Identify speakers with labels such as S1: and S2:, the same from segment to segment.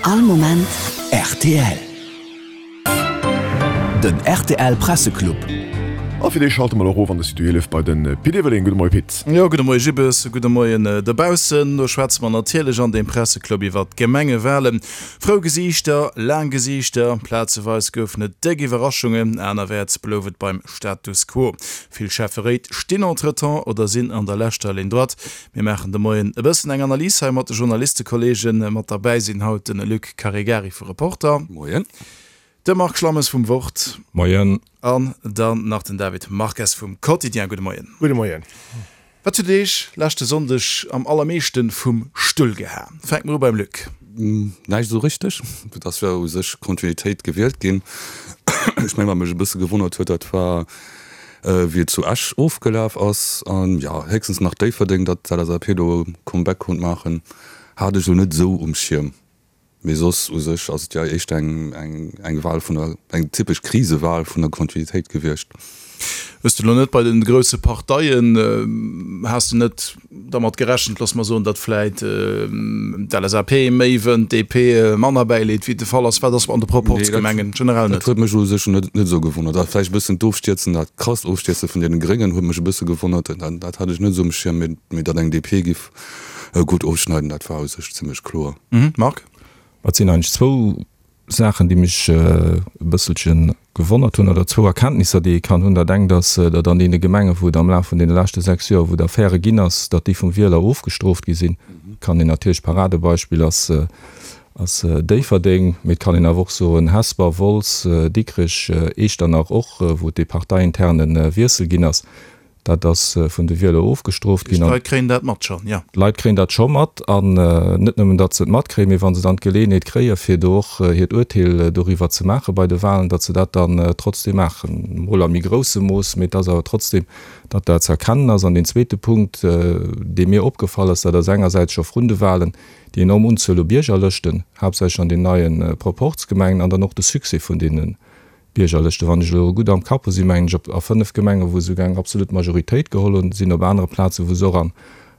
S1: All Moment rtl. Den rtl Presseclub.
S2: A fir dee schalte mer elo erof an de Studio 11 bei de Pit Everling. Gudde Moie Pit.
S3: Jo, gudde Moie Gibbes, gudde Moien dobaussen. Do schwätze mer natierlech an deem Presseclub iwwert d'Gemengewalen. Frou Gesiichter, laang Gesiichter, plazeweis goufen et déck Iwwerraschungen, anerwäerts blouf et beim Status quo. Vill Schäfferéit stinn entretemps oder sinn an der leschter Ligne droite. Mir maachen de Moien e bëssen eng Analys hei mat de Journalistekollegen. Mat derbäi sinn haut de Luc Caregari vu Reporter.
S4: Moien.
S3: De Marc Schlammes vum Wort.
S5: Moien.
S3: An dann nach den David Marques vum Quotidien. Gudde Moien.
S6: Gudde Moien.
S3: Wat huet Iech leschte Sonndeg am allermeeschte vum Stull gehaen? Fänke mer u beim Luc.
S4: Näischt esou richteg. Et ass jo u sech Kontinuitéit gewielt ginn. Ech mengen, wat mech e bësse gewonnert huet, dat war, wéi et zu Esch ofgelaf ass. An jo, héchstens nach Déifferdeng, datt d'LSAP do e Comeback konnt maachen, hat ech elo net esou um Schierm. Mee soss u sech ass et jo éischter eng, eng, eng Wahl vun der, eng typesch Krisewal vun der Kontinuitéit gewiescht.
S3: Hues de elo net bei den grousse Parteien, has de net dermat gerechent, looss mer soen, datt vläit d'LSAP méi wënnt, d'DP manner bäileet, wéi et de Fall ass? Wat ass an de Proporzgemengen generell
S4: net? Dat huet mech u sech net, net esou gewonnert. A vläicht e bëssen d'Ofstierzen, dat krasst Ofstierze vun deene Gréngen huet mech e bësse gewonnert. Dat, dat hat ech net esou um Schierm. Mee, mee datt eng DP giff gutt ofschneiden, dat war u sech zimmlech kloer.
S3: Marc?
S5: Et sinn eigentlech zwou Saachen, déi mech e bësselche gewonnert hunn, oder zwou Erkenntnisser, déi ee kann hunn. Dat engt ass, datt an deene Gemengen, wou et am Laf vun deene leschte 6 Joer, wou et Affäre ginn ass, datt déi vum Wieler ofgestrooft gi sinn. Kann een natierlech, Paradebeispill ass, ass Déifferdeng, mee et kann een awer och soen Hesper, Wolz, Dikrech, Eechternach och, wou et dee parteiinterne Wiessel ginn ass. Dat ass vun de Wieler ofgestrooft ginn.
S3: D'Leit kréien dat mat schonn, jo.
S5: D'Leit kréien dat scho mat. An net nëmmen, datt se et matkréien, mee wa se dann d'Geleeënheet kréien, fir do och hiert Urteel doriwwer ze maache bei de Wahlen, datt se dat dann trotzdem maachen. Mol a méi groussem Mooss, mee et ass awer trotzdem, datt dat ze erkennen ass. An deen zweete Punkt, dee mir opgefall ass, dat ass engersäits scho vrun de Wahlen déi enorm Unzuel u Biergerlëschten, haaptsächlech an den neie Proporzgemengen, an dann och de Succès vun deene Biergerlëschte, wann ech elo gutt am Kapp hu, si mengen ech op a 5 Gemengen, wou se souguer eng absolut Majoritéit geholl hunn, sinn op anere Plazen, wou se och an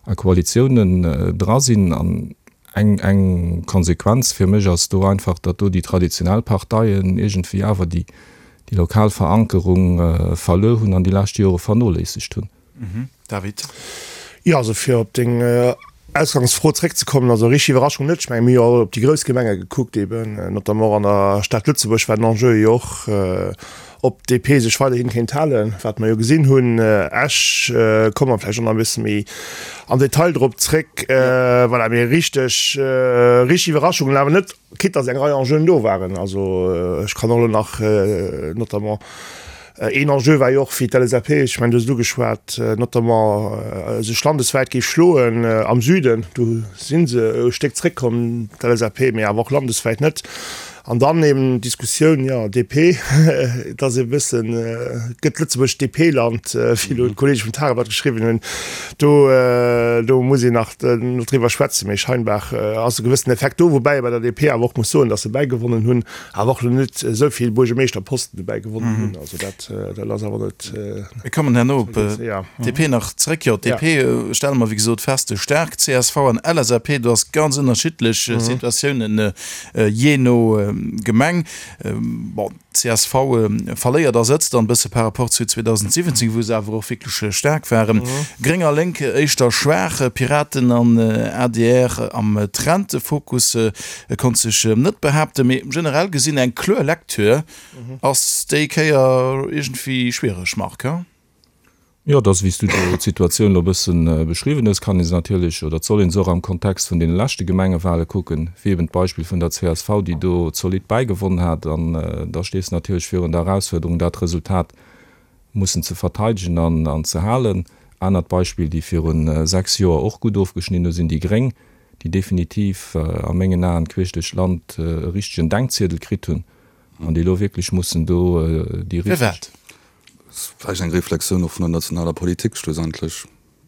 S5: a Koalitiounen dra sinn. An eng eng Konsequenz fir mech ass do einfach, datt do déi traditionell Parteien iergendwéi awer déi déi lokal Verankerung verluer hunn an déi lescht Jore vernoléissegt hunn.
S3: David.
S6: Jo, also fir op deng Ausgangsfro zréckzekommen, also richteg Iwwerraschung net. Ech menge mir hu jo all op déi grouss Gemenge gekuckt eben, notamment och an der Stad Lëtzebuerg war den Enjeu jo och, ob d'DP sech weiderhin kéint halen, wat mer jo gesinn hunn. Esch, komme mer vläicht och nach e bësse méi am Detail drop zréck. Voilà, mee richteg, richteg Iwwerraschungen awer net, quitte datt eng Rei Enjeuen do waren. Also ech kann och elo nach notamment Een Enjeu war jo och fir d'LSAP, ech mengen, du hues et ugeschwat, notamment sech landeswäit géif schloen am Süden. Do si se e Stéck zréckkomm, d'LSAP, mee awer och landeswäit net. An dann eben d'Diskussioun, jo, DP, et ass e bëssen, gëtt Lëtzebuerg DP-Land, wéi elo d'Kollege vum Tageblatt geschriwwen hunn. Do, do muss een nach driwwer schwätzen, mee scheinbar ass e gewëssenen Effekt do, woubäi ee bei der DP awer och muss soen, datt se bäigewonnen hunn. Awer och net esou vill Buergemeeschterposten dobäi gewonnen hunn. Also dat, dat ass awer net.
S3: Mir kommen herno op d'DP nach zréck. Jo, d'DP stelle mer wéi gesot fest, staark. Csv an LSAP, do ass ganz ënnerschiddlech Situatiounen jee no Gemeng. Bon, csv verléiert a Sëtz dann e bësse par rapport zu 2017, wou se awer och wierklech staark waren. Gréng a Lénk éischter schwaach, Piraten an adr am Trend. Fokus E konnt sech net behaapten, mee generell gesinn eng kloer Lecture ass déi Kéier iergendwéi schwiereg, Marc, he?
S5: Jo, et ass, wéi s du do d'Situatioun elo e bëssen beschriwwen hues, kann ee se natierlech oder et soll ee se och am Kontext vun deene leschte Gemengewale kucken, wéi eben d'Beispill vun der csv, déi do zolidd bäigewonnen hat. An da stees de natierlech virun der Erausfuerderung, dat Resultat mussen ze verteidegen an ze halen. Anert Beispill, déi viru 6 Joer och gutt ofgeschnidden hu sinn déi Gréng, déi definitiv a mengen Aen queesch duerch d'Land e richtegen Denkziedel kritt hunn an déi elo wierklech mussen do déi richteg.
S3: Firwat?
S4: Vläicht eng Reflexioun och vun der nationaler Politik schlussendlech.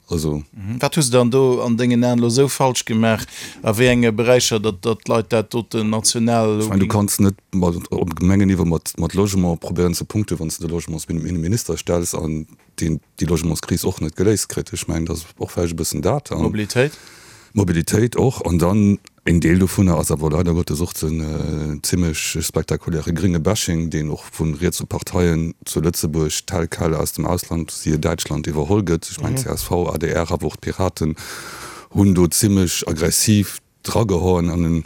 S4: Also.
S3: Wat hu se dann do an dengen Aen elo esou falsch gemaach, a wéi enge Beräicher, datt d'Leit dat doten national
S4: elo. Ech mengen, du kanns net mat op Gemengenniveau mat mat Logement probéieren ze punkten, wann s de de Logementsminister stells an deen déi Logementskris och net geléist kritt. Ech mengen, dat ass och vläicht e bëssen dat.
S3: Mobilitéit?
S4: Mobilitéit och. An dann. Een Deel dovunner ass awer leider Gottes och den zimmlech spektakuläre grénge Bashing, deen och vu rietse Parteien zu Lëtzebuerg tel quel aus dem Ausland, siehe Däitschland, iwwerholl gëtt. Ech mengen csv, adr, awer och d'Piraten hunn do zimmlech aggressiv dragehauen an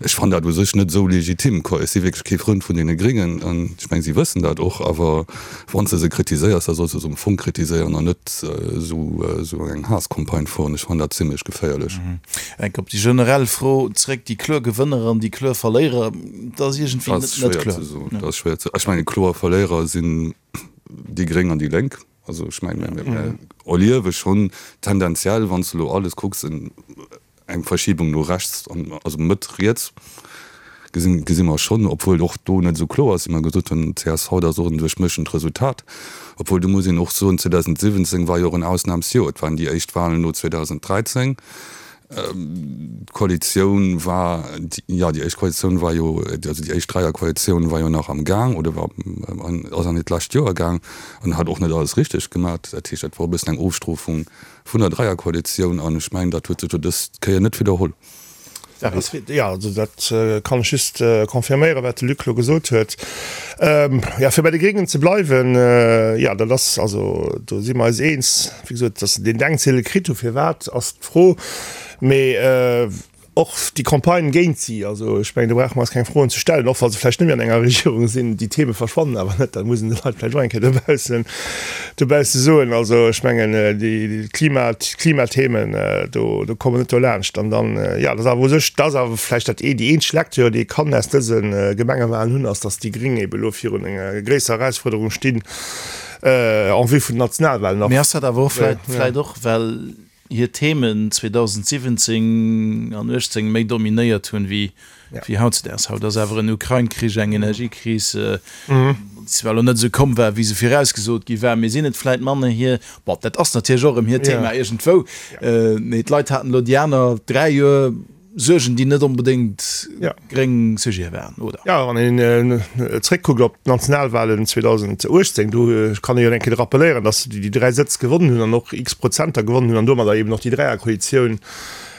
S4: ech fannen dat u sech net esou legitim quoi. Ech si wierklech kee Frënd vun deene Gréngen an ech mengen si wëssen dat och, awer wann s de se kritiséiers, da solls de se um Fong kritiséieren an net esou esou eng Haasscampagne fueren. Ech fannen dat zimlech geféierlech.
S3: Enk op déi generell Fro zréck, déi kloer Gewënner an déi kloer Verléierer, dat ass iergendwéi
S4: net net kloer. Dat ass schwéier ze soen. Ech mengen kloer Verléierer sinn déi Gréng an déi Lénk. Also ech mengen mir erliewe schonn tendenziell, wann s de elo alles kucks, en Eng Verschiebung no rechts, also Mëtt riets, gesinn, gesi mer schonn, obwuel och do net esou kloer ass, wéi mer gesot hunn, csv, dat ass och en duerchmëschent Resultat. Obwuel, do muss een och soen, 2017 war jo och en Ausnamsjoer, et waren déi éischt Wahlen no 2013, d'Koalitioun war, jo, déi éischt Koalitioun war jo, also déi éischt Dräierkoalitioun war jo nach am Gaang oder war, ass an hiert lescht Joer gaang an hat och net alles richteg gemaach. Dat heescht, dat war e bëssen eng Ofstrofung Vun der Dräierkoalitioun, an ech mengen, dat huet sech jo dës Kéier net widderholl.
S6: Jo, also dat kann ech just confirméieren, wat de Luc elo gesot huet. Jo, fir bei de Gréngen ze bleiwen, jo, dat ass, also do si mer eis eens, wéi gesot, datt se deen Denkziedel kritt hu firwat, ass d'Fro. Mee Och déi Campagne géint si, also ech mengen, do brauche mer eis keng Froen ze stellen, och wa se vläicht net méi an enger Regierung sinn, déi Theme verschwannen awer net, dat muss een de Leit vläicht och eng Kéier dobaussen, dobausse soen. Also ech mengen, déi Klima, d'Klimathemen, do, do komme mer net dolaanscht. An dann, jo, dat ass awer u sech, dat ass awer vläicht dat ee, déi eenzeg Lecture, déi ee kann aus dëse Gemengewahlen hunn, ass, datt déi Gréng ebe elo virun enger gréisserer Erausfuerderung stinn en vue vun den Nationalwahlen
S3: och. Mee ass dat awer och vläicht, vläicht och, well hir Themen 2017 an 18 méi dominéiert hunn wéi hautzedaags. Haut ass awer en Ukrain-Krich, eng Energiekris, déi zwar elo net esou komm war, wéi se virausgesot gi war, mee sinn et vläit manner hir, bon, dat ass natierlech och erëm hiert Thema iergendwou, mee d'Leit haten elo déi aner 3 Joer Suergen, déi net onbedéngt gréng Sujete waren, oder?
S6: Jo, wann een zréckkuckt op d'Nationalwahlen 2018, do kann ee jo eng Kéier rappeléieren, datt se déi 3 Sëtz gewonnen hunn an och x Prozenter gewonnen hunn an domadder eben och déi Dräierkoalitioun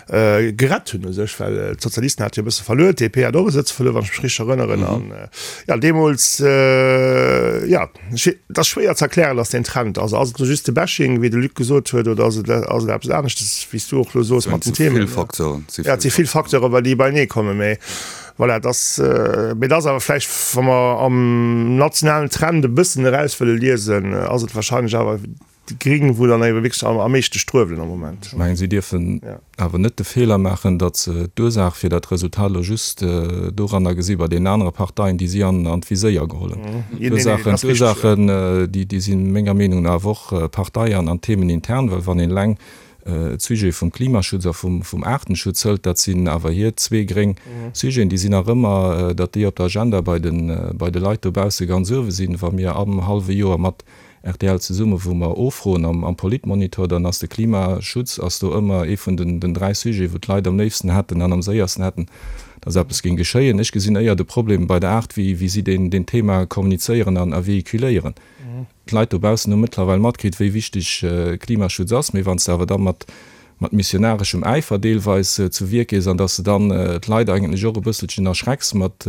S6: gerett hunn u sech, well d'Sozialisten hate jo e bësse verluer, d'DP hat och e Sëtz verluer, wann ech mech richteg erënneren. An jo, deemools, jo. Et ass schwéier ze erklären, dass deen Trend ass. Ass et elo just de Bashing, wéi de Luc gesot huet, oder ass et ass et eppes aneschtes, wéi s du och elo soos mat den Themen? Ja, et si vill Facteuren, well déi beienee kommen. Mee voilà, et ass, mee et ass awer vläicht, wa mer am nationalen Trend e bëssen eraus wëlle liesen, ass et wahrscheinlech awer déi Gring, wou dann ebe wierklech am meeschte struewelen am Moment.
S5: Ech mengen, si dierfen awer net de Feeler maachen, datt se d'Ursaach fir dat Resultat elo just doranner gesi bei deenen anere Parteien, déi si an d'Viséier geholl hunn. D'Ursaachen, d'Ursaachen, déi si menger Meenung no awer och Partei an themenintern, well wann een eleng d'Sujete vum Klimaschutz a vum Aartenschutz hëlt, dat sinn awer hir zwee gréng Sujeten, déi sinn nach ëmmer, datt déi op der Agenda bei de Leit dobausse ganz uewe sinn. Wa mir am hallwe Joer mat Rtl Zesumme wou mer offroen am Politmonitor, dann ass de Klimaschutz ass do ëmmer ee vun den 3 Sujeten, wou d'Leit am léifsten hätten an am séiersten hätten, dass eppes géing geschéien. Ech gesinn éier de Problem bei der Aart, wéi wéi si deen deen Thema kommunizéieren an a véhiculéieren. D'Leit dobaussen hu mëttlerweil matkritt, wéi wichteg Klimaschutz ass, mee wann s de awer da mat mat missionareschem Äifer deelweis zu Wierk gees an dass de dann d'Leit eigentlech och e bësselchen erschrecks mat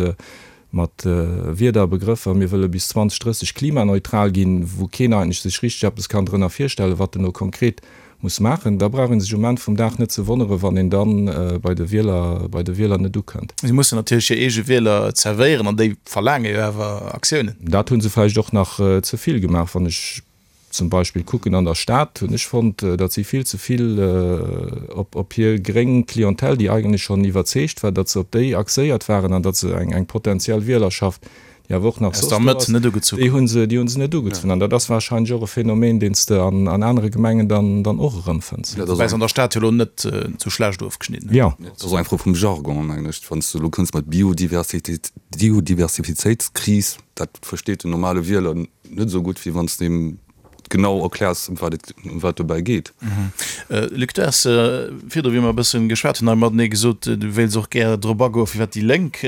S5: mat Wierder a Begrëffer, mir wëlle bis 2030 klimaneutral ginn, wou keen eigentlech sech richteg eppes kann drënner virstellen, wat en elo konkret muss maachen, da brauch ee sech um Enn vum Dag net ze wonneren, wann een dann bei de Wieler, bei de Wieler net ukënnt.
S3: Si mussen natierlech hir eege Wieler zerwéieren an déi verlaange jo awer Aktiounen.
S5: Dat hu se vläicht och nach ze vill gemaach. Wann ech zum Beispill kucken an der Stad, hunn ech fonnt, datt si vill ze vill op hir gréng Clientèle, déi eigentlech schonn iwwerzeegt war, datt se op déi axéiert waren an datt se eng potentiell Wielerschaft, déi awer och nach soss do ass, déi hu se, déi hu se net ugezunn. An dat ass warscheinlech och e Phänomen, deen s de an anere Gemengen dann och erëmfënns.
S3: Woubäi se an der Stad jo elo net esou schlecht ofgeschnidden
S4: hunn. Jo. Dat ass och eng Fro vum Jargon, mengen ech. Wann s de elo kënns mat Biodiversitéit, Biodiversitéitskris, dat versteet den normale Wieler Net esou gutt, wéi wann s de him genau erkläers, ëm wat et, ëm wat dobäi geet.
S3: Luc, du has virdru, wéi mer e bëssen geschwat hunn hei matenee, gesot, du wéilts och gär drop agoen, firwat déi Lénk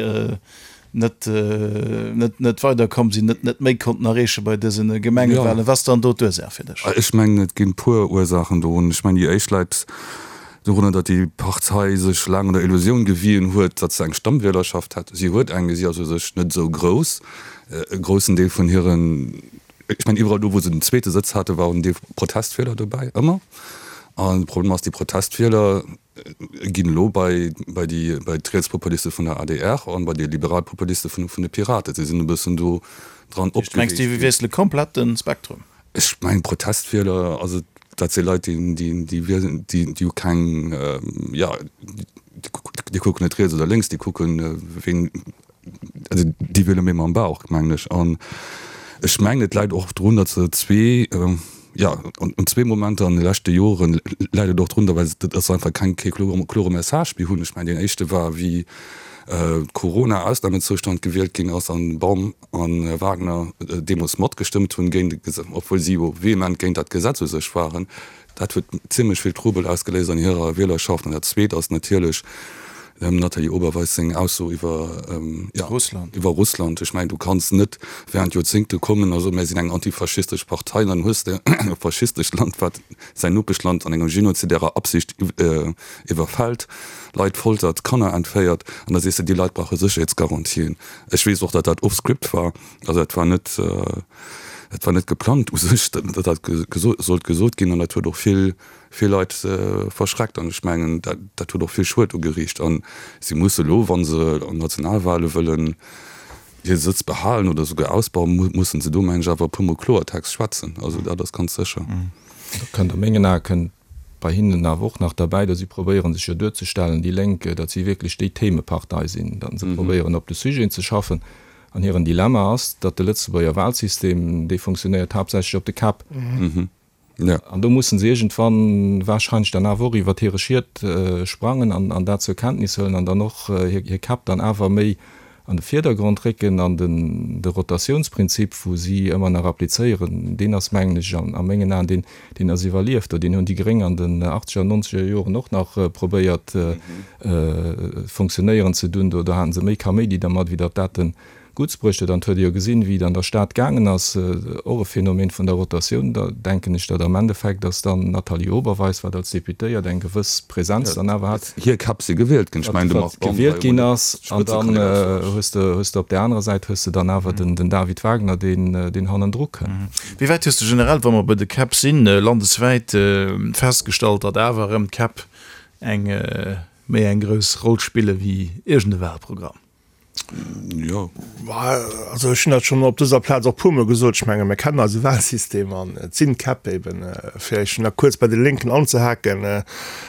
S3: net, net, net weiderkomm sinn, net, net méi konnten erreeche bei dëse Gemengewahlen. Wat ass dann do d'Ursaach fir dech?
S4: Ech mengen, et ginn e puer Ursaachen dorun. Ech mengen, déi éischt läit. Dorunner, datt déi Partei sech laang an der Illusioun gewien huet, datt se eng Stammwielerschaft hätt. Si huet eng, mee si ass u sech net esou grouss. E groussen Deel vun hiren, ech mengen iwwerall do, wou se den zweete Sëtz hate, war och en Deel Protestwieler dobäi, ëmmer. An de Problem ass, déi Protestwieler ginn elo bei bei déi bei d'Rietspopuliste vun der adr an bei déi Liberalpopuliste vun vun de Piraten. Si sinn e bëssen do dran
S3: opgeweecht ginn. Mengs de, déi wiessele komplett de Spektrum?
S4: Ech mengen Protestwieler, also dat si Leit, déi, déi, déi wielen, déi, déi hu keng, jo, déi kucken net riets oder lénks, déi kucken, ween, also déi wiele méi mam Bauch, mengen ech. An ech mengen, et läit och drun, datt se zwee, jo, an zwee Momenter an de leschte Joren läit et och drun, well datt se einfach keng, kee klore Message méi hunn. Ech mengen, deen éischte war, wéi Corona-Ausnamezoustand gewielt ginn ass an Baum a Wagner deemools matgestëmmt hunn géint e Gesetz, obwuel si jo vehement géint dat Gesetz u sech waren. Dat huet zimlech vill Trubel ausgeléist an hirer Wielerschaft. An dat Zweet ass natierlech dem Nathalie Oberweis seng Ausso iwwer, jo,
S3: Russland.
S4: iwwer Russland. Ech mengen, du kanns net während Joerzéngte kommen a soen, mir sinn eng antifaschistesch Partei, an dann hues de e faschistescht Land, wat säin Nopeschland an enger genozidärer Absicht iwwerfält, Leit foltert, Kanner entféiert, an da sees de, déi Leit brauche Sécherheetsgarantien. Ech weess och, datt dat off-script war, also dat war net, dat war net geplangt u sech, datt dat sollt gesot ginn an dat huet och vill, vill Leit verschreckt an ech mengen, dat, dat huet och vill Schued ugeriicht a si musse elo, wa se an Nationalwale wëllen hir Sëtz behalen oder esouguer ausbauen, mussen se do, mengen ech, awer e puermol Kloertext schwätzen, also dat ass ganz sécher.
S5: Do kënnt a mengen Ae kënnt bei hinnen awer och nach derbäi, datt si probéieren sech jo duerzestellen, déi Lénk, datt si wierklech déi Themepartei sinn, datt se probéieren op de Sujeten ze schaffen. An hiren Dilemma ass, datt de Lëtzebuerger Wahlsystem, dee funktionéiert haaptsächlech op de Käpp. An do mussen se iergendwann wahrscheinlech dann awer och iwwert hire Schiet sprangen an dat zur Kenntnis huelen an dann och hir Käpp dann awer méi an de Virdergrond récken. An de Rotatiounsprinzip, wou si ëmmer nach applizéieren, deen ass, mengen ech, a mengen Aen, deen, deen ass iwwerlieft. Deen hunn déi Gréng an den achtzeger an nonzeger Joren och nach probéiert funktionéieren ze dunn. Do haten se méi Kaméidi dermat, wéi datt dat de Gutts bruecht huet. An et huet ee jo gesinn, wéi et an der Stad gaangen ass, och e Phänomen vun der Rotatioun. Da denken ech, datt am Endeffekt ass dann d'Nathalie Oberweis, wat als Deputéiert eng gewëss Präsenz dann awer hat,
S4: Hir Käpp si gewielt ginn. Ech mengen, de Marc Baum war
S5: gewielt ginn ass. An dann hues de, hues de op där anerer Säit hues de dann awer den, den David Wagner, deen, deen hannendru kënn.
S3: Wéi wäit hues de generell, wa mer bei de Käpp sinn, landeswäit festgestallt, datt awer erëm d'Käpp eng méi eng grouss Roll spille wéi iergend e Wahlprogramm?
S4: Jo.
S6: Also ech hunn dat schonn op dëser Plaz och puermol gesot, ech menge mir kennen eise Wahlsystem an et sinn d'Käpp eben, fir ech nach kuerz bei de Lénken anzehaken, an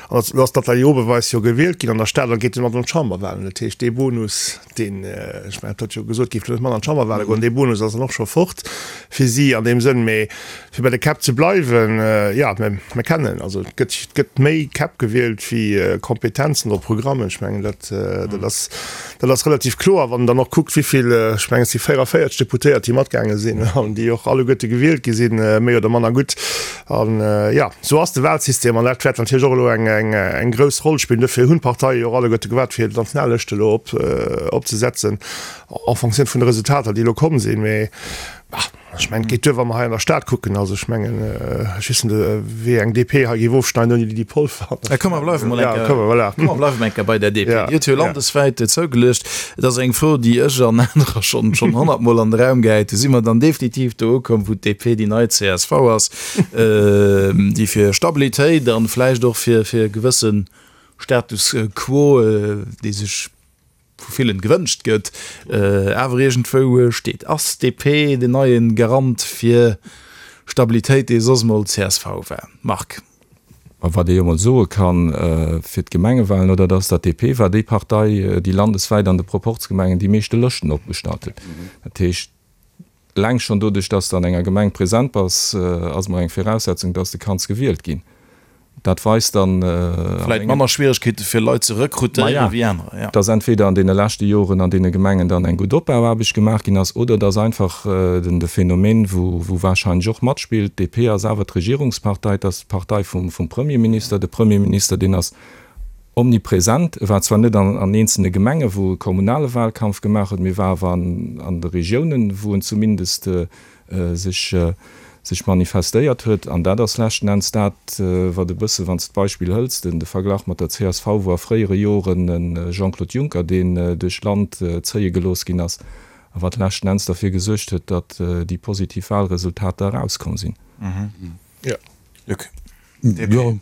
S6: elo ass d'Nathalie Oberweis jo gewielt ginn an der Stad a geet domat an d'Chamberwahlen. Dat heescht dee Bonus, deen, ech mengen et huet jo gesot, géif net mat an d'Chamberwahle goen, dee Bonus ass dann och scho fort fir si an deem Sënn. Mee fir bei de Käpp ze bleiwen, jo, mir kennen, also et gëtt, et gëtt méi Käpp gewielt wéi Kompetenzen oder Programmen. Ech mengen dat, dat ass, dat ass relativ kloer, wann een dann och kuckt, wéi vill, ech mengen et si 44 Deputéiert, déi matgaange sinn an déi och alleguerte gewielt gi sinn, méi oder manner gutt. An, jo, esou ass de Wahlsystem an dat wäert natierlech och elo eng, eng, eng grouss Roll spillen. Dofir hunn d'Parteie jo och alleguerte gewaart, fir d'Nationallëscht elo op, opzesetzen en Fonctioun vun de Resultater, déi elo komm sinn. Mee, bah. Ech mengen, et geet duer, wa mer hei an der Stad kucken. Also ech mengen, ech weess net, wéi eng DP hei géif ofschneiden ouni Lydie Polfer.
S3: Komm, mer bleiwe mol eng Kéier, komm, mer bleiwe mol eng Kéier bei der DP. Déi huet jo landeswäit zougeluecht. Et ass eng Fro, déi ech an anerer schonn, schonn honnertmol an de Raum gehäit hunn. Si mer dann definitiv do ukomm, wou d'DP déi nei csv ass, déi fir Stabilitéit an vläicht och fir, fir e gewësse Status quo, dee sech vu villen gewënscht gëtt, awer iergendwou steet. Ass DP den neien Garant fir Stabilitéit, dee soss mol csv war? Marc.
S5: Ma wat ee jo mol soe kann fir d'Gemengewahlen, oder, dat ass, datt DP war déi Partei, déi landeswäit an de Proporzgemengen déi meeschte Lëschten opgestallt huet. Dat heescht, Eleng schonn doduerch, dass de an enger Gemeng present bass, ass emol eng Viraussetzung, dass de kanns gewielt ginn. Dat weist dann
S3: a Vläit manner Schwieregkeete fir Leit ze rekrutéieren wéi anerer,
S5: jo. Dass entweder an deene leschte Joren an deene Gemengen dann eng gutt Opbauaarbecht gemaach ginn ass, oder dass einfach de Phänomen, wou wahrscheinlech och matspillt, d'DP ass awer d'Regierungspartei, et ass d'Partei vum Premierminister, de Premierminister, deen ass Omnipresent. E war zwar net an eenzelne Gemenge wou e kommunale Wahlkampf gemaach huet, mee war awer an de Regiounen, wou en zumindest sech. sech manifestéiert huet. An dat ass leschten Enns dat, wat e bësse, wann s de d'Beispill hëls, den de Verglach mat der csv, wou a fréiere Joren e Jean-Claude Juncker, deen duerch d'Land zéie gelooss ginn ass, a wat leschten Enns derfir gesuergt huet, datt déi positiv Wahlresultater erauskomm sinn.
S3: Luc, DP.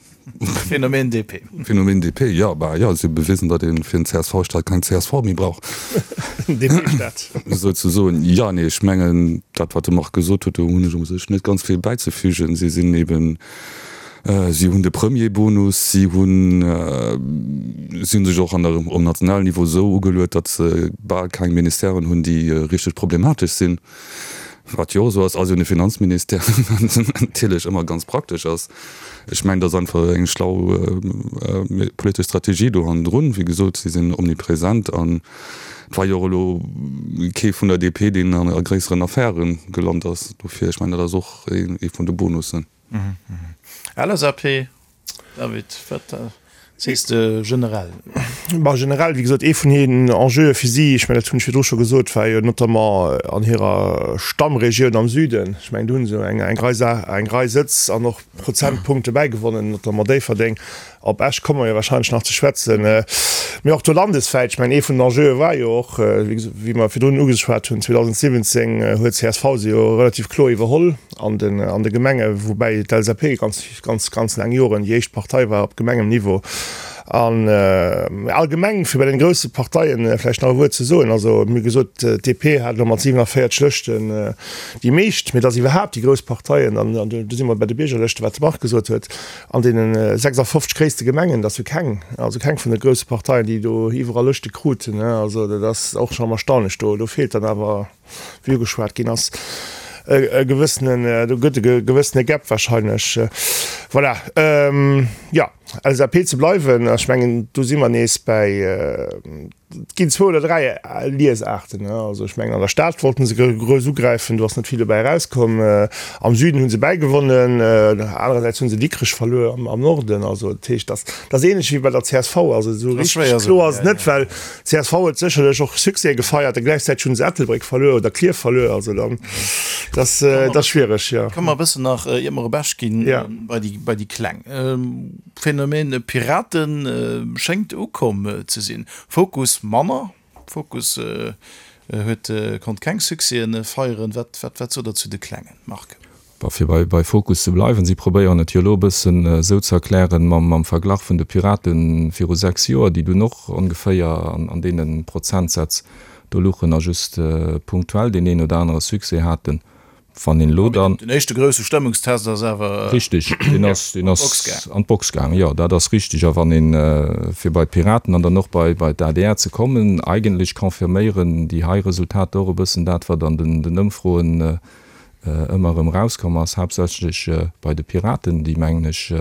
S3: Phänomen DP.
S4: Phänomen DP, jo, bah jo, si hu bewisen, datt ee fir en CSV-Staat keng csv méi brauch.
S6: DP-Staat.
S4: Souzesoen. Jo, nee, ech mengen, dat wat de Marc gesot huet, do hunn ech u sech net ganz vill bäizefügen. Si sinn eben, si hunn de Premierbonus, si hunn, si hunn sech och an der, um nationalen Niveau esou ugeluet, datt se bal keng Ministèren hunn, déi richteg problematesch sinn. Wat jo och esou ass, ass jo de Finanzministère, wat natierlech ëmmer ganz praktesch ass. Ech mengen, dat ass einfach eng schlau politesch Strategie do hannendrun. Wéi gesot, si sinn omnipresent an et war jo och elo kee vun der DP, deen a gréisseren Affäre gelant ass. Dofir, ech mengen, dat ass och ee vun de Bonussen.
S3: LSAP, David, wat sees de generell?
S6: Bah, generell, wéi gesot, ee vun hiren Enjeue fir si, ech mengen, dat hunn ech virdru scho gesot, war jo notamment an hirer Stammregioun am Süden. Ech mengen, do hu se eng eng Rei Sa eng Rei Sëtz an och Prozentpunkte bäigewonnen, notamment Déifferdeng. Op Esch komme mer jo warscheinlech nach ze schwätzen. Mee och do landeswäit, ech mengen, ee vun den Enjeue war jo och, wéi mer virdrun ugeschwat hunn, 2017 huet csv se jo relativ kloer iwwerholl an den an de Gemenge, woubäi d'LSAP ganz, ganz, ganz laang Joren déi éischt Partei war op Gemengenniveau. An allgemeng, fir bei den grousse Parteien vläicht nach e Wuert ze soen, also mir hu gesot, d'DP hat elo mat 47 Lëschten déi meescht, mee dass iwwerhaapt déi grouss Parteien, an do si mer bei de Biergerlëschten, wat de Marc gesot huet, An deene 56 gréisste Gemengen, dass jo keng, also keng vun de grousse Parteien, déi do iwwerall Lëschte kruten. Also dat ass och schonn erstaunlech. Do, do feelt dann awer, wéi ugeschwat ginn ass, e gewëssenen, do gëtt e gewëssene Gap wahrscheinlech. Voilà. Jo, LSAP ze bleiwen, ech mengen, do si mer nees bäi, Et ginn zwou oder 3 Liesaarten. Also ech mengen an der Stad wollten se grouss ugräifen, do ass net vill dobäi erauskomm. Am Süden hu se bäigewonnen, anerersäits hu se Dikrech verluer am Norden. Also dat heescht, dat ass ähnlech wéi bei der csv. Also esou richteg kloer ass et net, well csv huet sécherlech och Succèse gefeiert a gläichzäiteg hu se Ettelbréck verluer oder Klierf verluer. Also dann, dat ass schwiereg, jo.
S3: Komme mer e bëssen nach, iert mer op Esch ginn, bei déi Kleng. Phänomen Piraten schéngt ukomm ze sinn. Fokus manner. Fokus huet konnt keng Succèsen feieren. Wat wat sot der zu de Klengen, Marc?
S5: Bon, fir bei bei Fokus ze bleiwen, si probéieren et jo elo e bëssen esou ze erklären mam mam Verglach vun de Piraten viru 6 Joer, déi dunn och ongeféier an an deene Prozentsätz do luchen a just punktuell deen een oder anere Succès haten. Wann een elo dann.
S3: Den éischte grousse Stëmmungstest ass awer.
S5: Richtig, deen ass, deen ass an d'Box gaangen, jo, dat ass richtig. A wann een, fir bei d'Piraten an dann och bei, bei d'ADR ze kommen, eigentlech confirméieren déi hei Resultater och e bëssen dat, wat an den, den Ëmfroen ëmmer erëm erauskomm ass, haaptsächlech bei de Piraten, déi, mengen ech,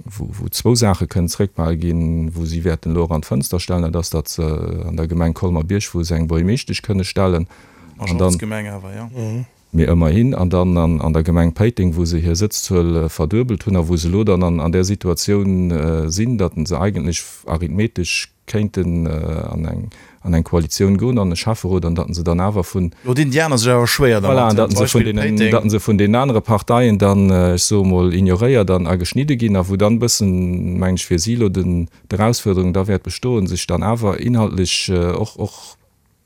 S5: wou, wou zwou Saache kënnen zréckbehal ginn, wou si wäerten elo och an d'Fënster stellen, dat ass, datt se an der Gemeng Colmer-Bierg, wou se eng Buergermeeschtesch kënne stellen, an dann,
S3: Majorzgemeng awer, jo.
S5: Mee ëmmerhin, an dann an, an der Gemeng Péiteng, wou se hir Sëtzzuel verduebelt hunn a wou se elo dann an, an där Situatioun sinn, datt se eigentlech arithmetesch kéinten an eng an eng Koalitioun goen an e Schäfferot an datt se dann awer vun.
S3: Do dinn déi aner sech awer schwéier
S5: dermat. Voilà, an datt se vun deenen, datt se vun deenen anere Parteien dann, ech soe mol, ignoréiert an a geschnidde ginn a wou dann e bëssen, mengen ech, fir si elo den d'Erausfuerderung da wäert bestoen, sech dann awer inhaltlech och och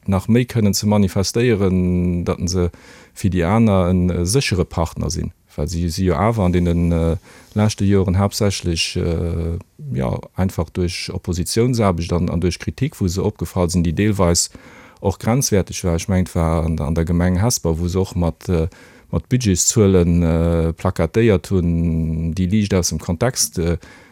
S5: nach méi kënnen ze manifestéieren, datt se fir déi aner e séchere Partner sinn, well si si jo awer an deene leschte Joren haaptsächlech, jo, einfach duerch Oppositiounsaarbecht an duerch Kritik, wou se opgefall sinn, déi deelweis och grenzwäerteg war. Ech mengen, et war an der Gemeng Hesper, wou se och mat Budgetszuele plakatéiert hunn, déi liicht aus dem Kontext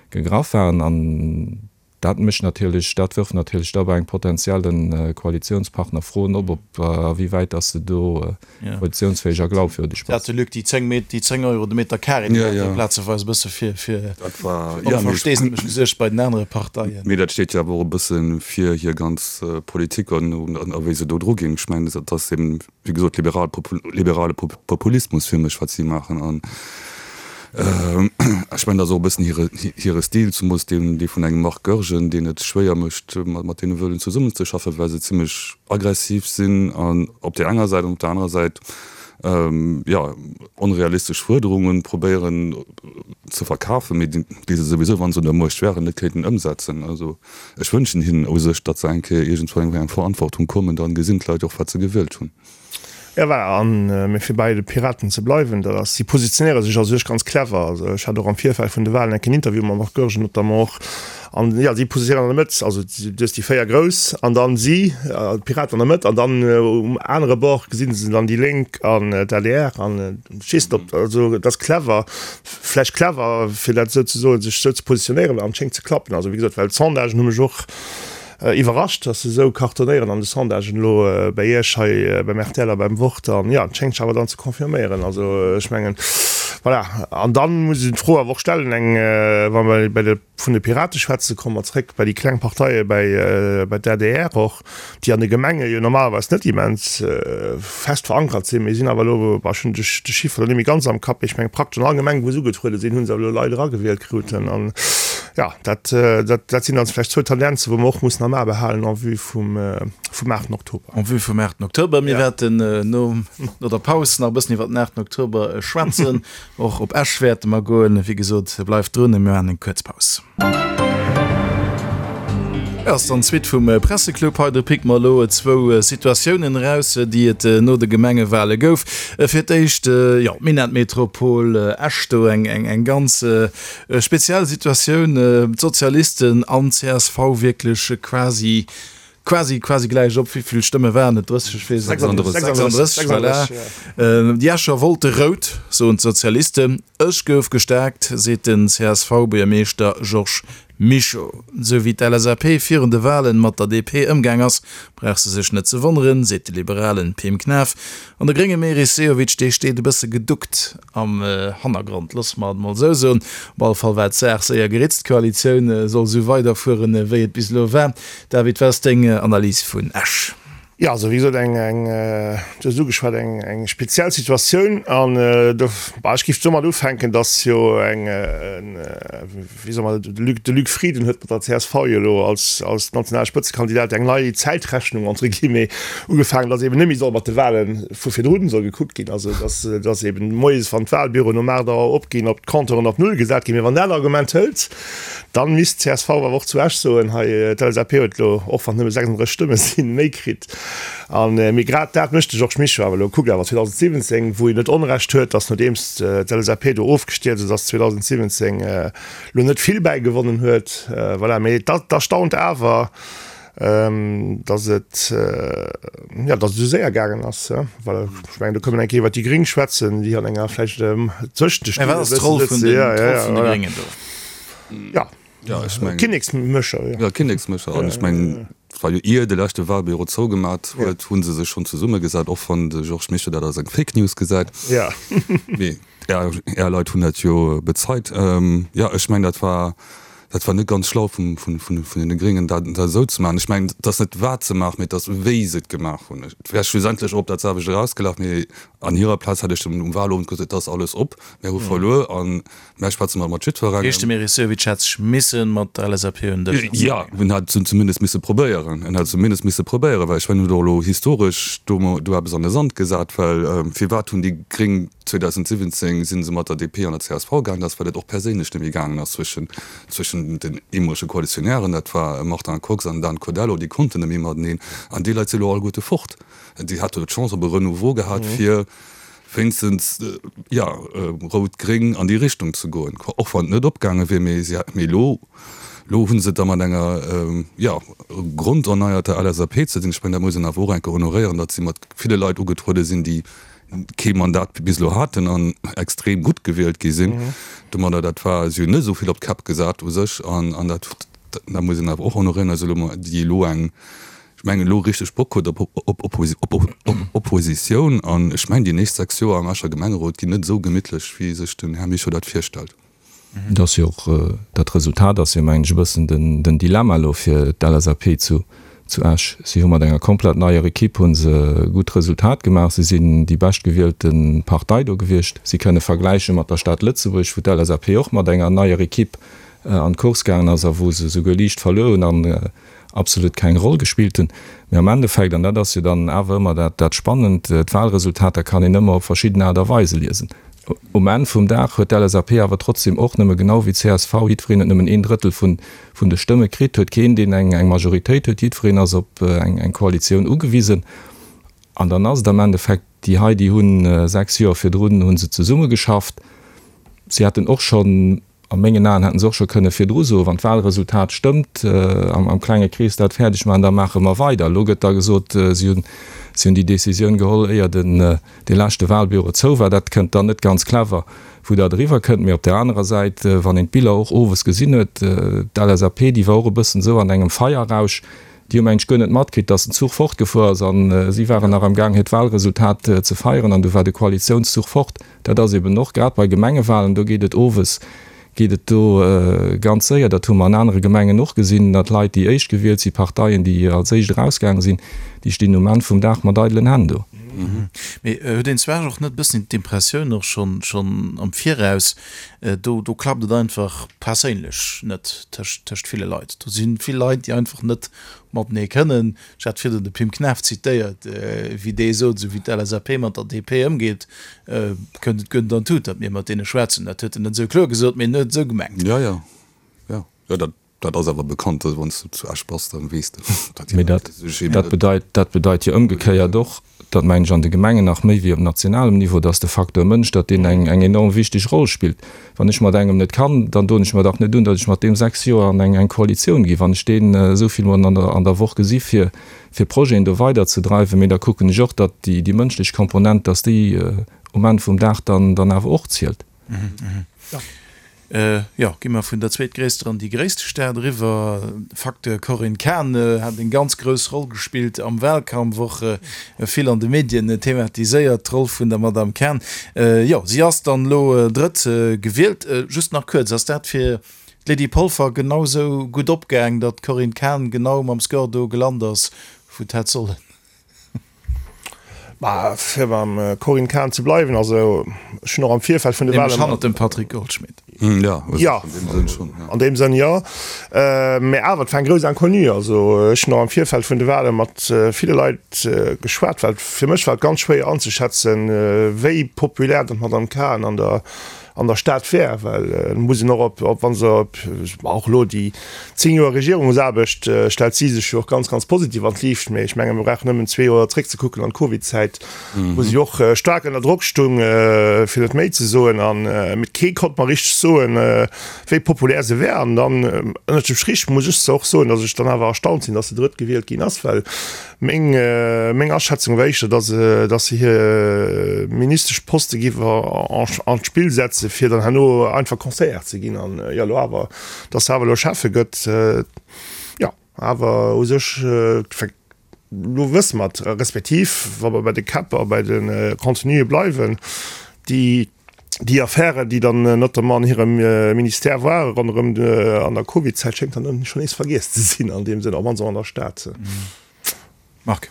S5: gegraff waren. An Dat mécht natierlech, dat wërft natierlech da bei engem potenzielle Koalitionspartner Froen op, ob a wéi wäit dass se do koalitionsfäeg a glaubwürdeg
S3: Dat de Luc, déi 10 Met, déi 10 Euro de Meter carré, déi hat jo plazeweis e bësse fir, fir Onversteesdemech gesuergt bei den anere Parteien.
S4: Mee dat steet jo awer och e bësse fir hir ganz Politik an a wéi se do dru ginn. Ech mengen, dat ass eben, wéi gesot, liberal, liberale Populismus fir mech, wat si maachen. An ech mengen, dat ass och e bëssen hire, hire Stil, zumools deen, dee vun engem Marc Goergen, deen et schwéier mécht, mat deene wëllen zesummenzeschaffen, well se zimlech aggressiv sinn an op där enger Säit an op där anerer Säit. Jo, onrealistesch Fuerderunge probéieren ze verkafen, mee déi se souwisou, wa se un der Muecht wären, net kéinten ëmsetzen. Also ech wënschen hinnen u sech, datt se eng Kéier iergendwann eng Verantwortung kommen, dann gesinn d'Leit och, wat se gewielt hunn.
S6: Jo, voilà, an mee fir bäi de Piraten ze bleiwen, dat ass, si positionéiere sech a sech ganz clever. Also ech hat och am Virfeld vun de Wahlen enk en Interview mam Marc Goergen notamment och, an jo, si positionéieren an der Mëtt, also du hues déi 4 Grouss an dann si, d'Piraten an der Mëtt, an dann um anere Bord gesi se dann déi Lénk an d'ADR an ech weess net ob, also et ass clever, vläicht clever fir dat esou ze soen, sech esou ze positionéieren an et schéngt ze klappen. Also wéi gesot, well d'Sondagen hu mech och Iwwerrascht, dass se esou cartonéieren an de Sondagen elo bäi Iech hei beim rtl a beim Wort. An jo, et schéngt sech awer dann ze confirméieren. Also ech mengen, voilà. An dann muss een d'Fro awer och stellen, eng, wa mer bei de, vun de Pirate schwätzen, komme mer zréck bei déi kleng Parteie, bäi, bei d'ADR och, déi an de Gemenge jo normalerweis net immens fest verankert sinn, mee sinn awer elo, bah, ech hunn de Chiffre elo net méi ganz am Kapp, mee ech mengen praktesch an all Gemeng, wou se ugetruede sinn, hu se awer elo Leit eragewielt kruten. An Jo, dat, dat sinn dann vläicht zwou Tendenzen, wou mer och mussen am A behalen en vue vum, vum 8. Oktober.
S3: En vue vum 8. Oktober. Mir wäerten no, no der Paus nach e bëssen iwwer den 8. Oktober schwätzen. Och op Esch wäerte mer goen. Wéi gesot, bleift drun, mir maachen eng kuerz Paus. Et ass dann d'Suite vum Presseclub. Hei do picke mer elo zwou Situatiounen eraus, déi et no de Gemengewale gouf. Fir d'éischt, jo, d'Minettmetropol Esch, do eng, eng ganz Speziell Situatioun, d'Sozialisten an csv wierklech quasi, quasi, quasi gläich op. Wéi vill Stëmme waren et? 30, ech weess et net. 36, voilà. Déi Escher wollte rout, soen d'Sozialisten. Esch gouf gestaarkt, seet den CSV-Buergermeeschter Georges Mischo. Sou wéi d'LSAP virun de Walen mat der DP ëmgaang ass, brauch se sech net ze wonneren, seet de liberalen Pim Knaff. An de grénge Meris Sehovic, dee steet e bësse geduckt am Hannergrond, loosse mer et mol esou soen. Op alle Fall war d'Saach séier geritzt, d'Koalitioun soll esou weiderfueren, wéi et bis elo war. David, wat ass deng Analys vun Esch?
S6: Jo, also wéi gesot, eng, eng, du hues et ugeschwat, eng, eng speziell Situatioun. An do, bah, ech géif domat ufänken, datt jo eng, wéi soe mer, de Luc, de Luc Frieden huet mat der csv jo elo als, als nationale Spëtzekandidat eng nei Zäitrechnung, entre guillemets, ugefaangen, datt eben net méi soll mat de Wahle vu virdrun soll gekuckt ginn, also datt, datt eben moies, wann d'Wahlbüroen um 8 Auer opginn, ob d'Compteuren op Null gesat ginn. Mee wann dat Argument hëlt, dann misst d'CSV awer och zu Esch soen, hei, d'LSAP huet elo, och wann et nëmme 36 Stëmme sinn, méi kritt. An, mee grad dat mécht de Georges Mischo awer elo. Kuckt awer 2017, wou en net Onrecht huet, datt nodeems d'LSAP do ofgestierzt ass 2017, elo net vill bäigewonnen huet. Voilà, mee et erstaunt awer, datt et, jo, datt et esou séier gaangen ass. Well ech mengen, do kënne mer eng Kéier iwwer déi Gréng schwätzen, déi an enger vläicht tëschent de
S3: Stille e bëssen sëtzen. Ja, ja, ja, voilà.
S6: Ja.
S4: Ja, ech mengen.
S6: Kinneksmécher,
S4: jo. Ja, Kinneksmécher. An ech mengen, et war jo ier de leschte Wahlbüro zougemat huet, hu se sech schonn zesummegesat, och wann de Georges Mischo dat als eng Fake News gesäit.
S6: Ja.
S4: Mee Är, Är Leit hunn dat jo bezeit. Jo, ech mengen, dat war, dat war net ganz schlau vum, vun, vun, vun deene Gréngen, dat, dat esou ze maachen. Ech mengen, et ass net wat se maachen, mee et ass wéi se et gemaach hunn. Et wär schlussendlech och op dat selwecht erausgelaf, mee an hirer Plaz hätt ech dann um Wahlowend gesot, et ass alles op, mär hu verluer an Mä schwätze mer mat jiddwerengem.
S3: Heescht de Meris Sehovic hätt sech misse mat der LSAP un den Dësch setzen?
S4: Jo, en hätt et zumindest misse probéieren. En hätt et zumindest misse probéieren, well ech mengen, en huet och elo historesch do do eppes an de Sand gesat, well firwat hunn déi Gréng 2017 si se mat der DP an der csv gaangen? Dat ass, well et och perséinlech net méi gaangen ass zwëschen zwëschen den eemolege Koalitionären, dat war Martin Kox an Dan Codello, déi konnten net méi mateneen. An déi Leit si elo alleguerte fort. Déi hate jo d'Chance op e Renouveau gehat fir wéinstens, jo, rout-gréng an déi Richtung ze goen, och wann et net opgaange wier, mee si mee elo, elo hu se et da mat enger, jo, gronderneierter LSAP ze dinn. Ech mengen, dat muss een awer och eng Kéier honoréieren, datt si mat ville Leit ugetruede sinn, déi kee Mandat bis elo haten an extrem gutt gewielt gi sinn domadder. Dat war, si hunn net esou vill op d'Käpp gesat u sech an dat, dat muss een awer och honoréieren, also elo, déi elo eng, ech mengen, elo richteg Bock huet op Oppositioun. An ech mengen, déi nächst 6 Joer am Escher Gemengerot ginn net esou gemittlech, wéi sech den Här Mischo dat virstellt.
S5: Et ass jo och, dat Resultat ass jo, mengen ech, e bëssen den Dilemma elo fir d'LSAP zu Esch. Si hu mat enger komplett neier Ekipp hu se e gutt Resultat gemaach. Si sinn déi beschtgewielte Partei do gewiescht. Si kënne vergläiche mat der Stad Lëtzebuerg, wou d'LSAP och mat enger neier Ekipp an d'Course gaangen ass a wou se souguer liicht verluer hunn. absolut keng Roll gespillt hunn. Mee am Endeffekt, an dat ass jo dann awer ëmmer dat, dat Spannend, d'Wahlresultater kann een ëmmer op verschidden Aart a Weise liesen. Um Enn vum Dag huet d'LSAP awer trotzdem och nëmme, genau wéi d'CSV, jiddwereen huet nëmmen een Drëttel vun, vun de Stëmme kritt, huet keen, deen eng, eng Majoritéit huet, jiddwereen ass op eng, eng Koalitioun ugewisen. An dann ass et am Endeffekt, déi hei, déi hunn 6 Joer virdrun hu se zesummegeschafft, si hätten och schonn, A mengen Aen hätten se och scho kënne virdru soen, wann d'Wahlresultat stëmmt, am klenge Krees dat fäerdeg maachen, da maache mer weider. Elo gëtt da gesot, si hunn, si hunn déi Décisioun geholl, éier den, dee leschte Wahlbüro zou war. Dat kënnt dann net ganz clever, wou dat eriwwer kënnt. Mee op där anerer Säit, wann een d'Biller och owes gesinn huet, d'LSAP, déi war och e bëssen esou an engem Feierrausch, déi hu mengen ech guer net matkritt, datt den Zuch fortgefuer ass an si waren nach am Gaang hiert Wahlresultat ze feieren an du war de Koalitiounszuch fort. Dat ass eben och grad bei Gemengewahlen, do geet et owes, geet et do ganz séier. Dat hu mer an anere Gemengen och gesinn, datt Leit, déi éischt gewielt sinn, Parteien, déi als éischt erausgaange sinn, déi stinn um Enn vum Dag mat eidelen Hänn do.
S3: Mee huet een zwar och net e bëssen d'Impressioun och schonn schonn am Viraus, do do klappt et einfach perséinlech net tëscht tëscht ville Leit. Do si vill Leit, déi einfach net matenee kënnen. Ech hat virdrun de Pim Knaff zitéiert, wéi dee sot, esou wéi d'LSAP mat der DP ëmgeet, kënnt et guer net an d'Tut, datt mir mat deene schwätzen. Dat huet en net esou kloer gesot, mee en huet et esou gemengt.
S4: Jo, jo, jo, jo, dat, dat ass awer bekannt. Also wann s du zu Esch bass, dann weess de,
S5: datt déi Leit sech eben net. Mee dat bedeit jo ëmgekéiert och, dat mengen ech an de Gemengen nach méi wéi op nationalem Niveau, dass de Facteur Mënsch, datt deen eng eng enorm wichteg Roll spillt. Wann ech mat engem net kann, dann doen ech mer dach net un, datt ech mat deem 6 Joer an eng eng Koalitioun ginn, wann ech deen esou vill mol an der an der Woch gesi fir fir Projeten do weiderzedreiwen. Mee da kucken ech och, datt déi déi mënschlech Komponent, datt déi um Enn vum Dag dann dann awer och zielt.
S3: Jo, gi mer vun der zweetgréisster an déi gréisste Stad eriwwer. Facteur Corinne Cahen hat eng ganz grouss Roll gespillt am Wahlkampf, och vill an de Medien thematiséiert, d'Roll vun der Madame Cahen. Jo, si ass dann elo drëtt gewielt. Just nach kuerz, ass dat fir d'Lydie Polfer genau sou gutt opgaang, datt d'Corinne Cahen genau mam Score do gelant ass, wou et hätt sollen?
S6: Bah, fir beim Corinne Cahen ze bleiwen, also ech hunn och am Virfeld vun de
S3: Wahlen. Nämlech hannert dem Patrick Goldschmidt.
S4: Jo,
S6: jo, an deem Sënn schonn, jo. An deem Sënn, jo. Mä awer, et war eng grouss Inconnue. Also ech hunn och am Virfeld vun de Wahle mat ville Leit geschwat, well fir mech war et ganz schwéier anzeschätzen, wéi populär dann d'Madame Cahen an der an der Stad wär, well et muss een och op, op wa se op, och elo déi 10 Joer Regierungsaarbecht stellt si sech jo och ganz, ganz positiv an d'Liicht, mee ech menge mir brauchen nëmmen zwee Joer zréckzekucken an d'Covidzäit, wou si och staark ënner Drock stung, fir net méi ze soen, an mee kee konnt mer richteg soen, wéi populär se wär. An dann ënnert dem Strich muss ech och soen, datt ech dann awer erstaunt sinn, datt se drëttgewielt ginn ass, well Meng meng Aschätzung war éischter, datt se datt se hir Ministeschposte géif an d'Spill setze fir dann herno einfach Conseillère ze ginn an jo elo awer, datt se awer elo Schäffe gëtt, jo awer u sech elo wësse mer et, respektiv wa mer bei de Käpp a bei de Contenuë bleiwen, déi Déi Affären, déi dann notamment an hirem Ministère ware ronderëm an der Covid-Zäit, schéngt dann schonn nees vergiess ze sinn an deem Sënn, op mannst och an der Stad.
S3: Marc.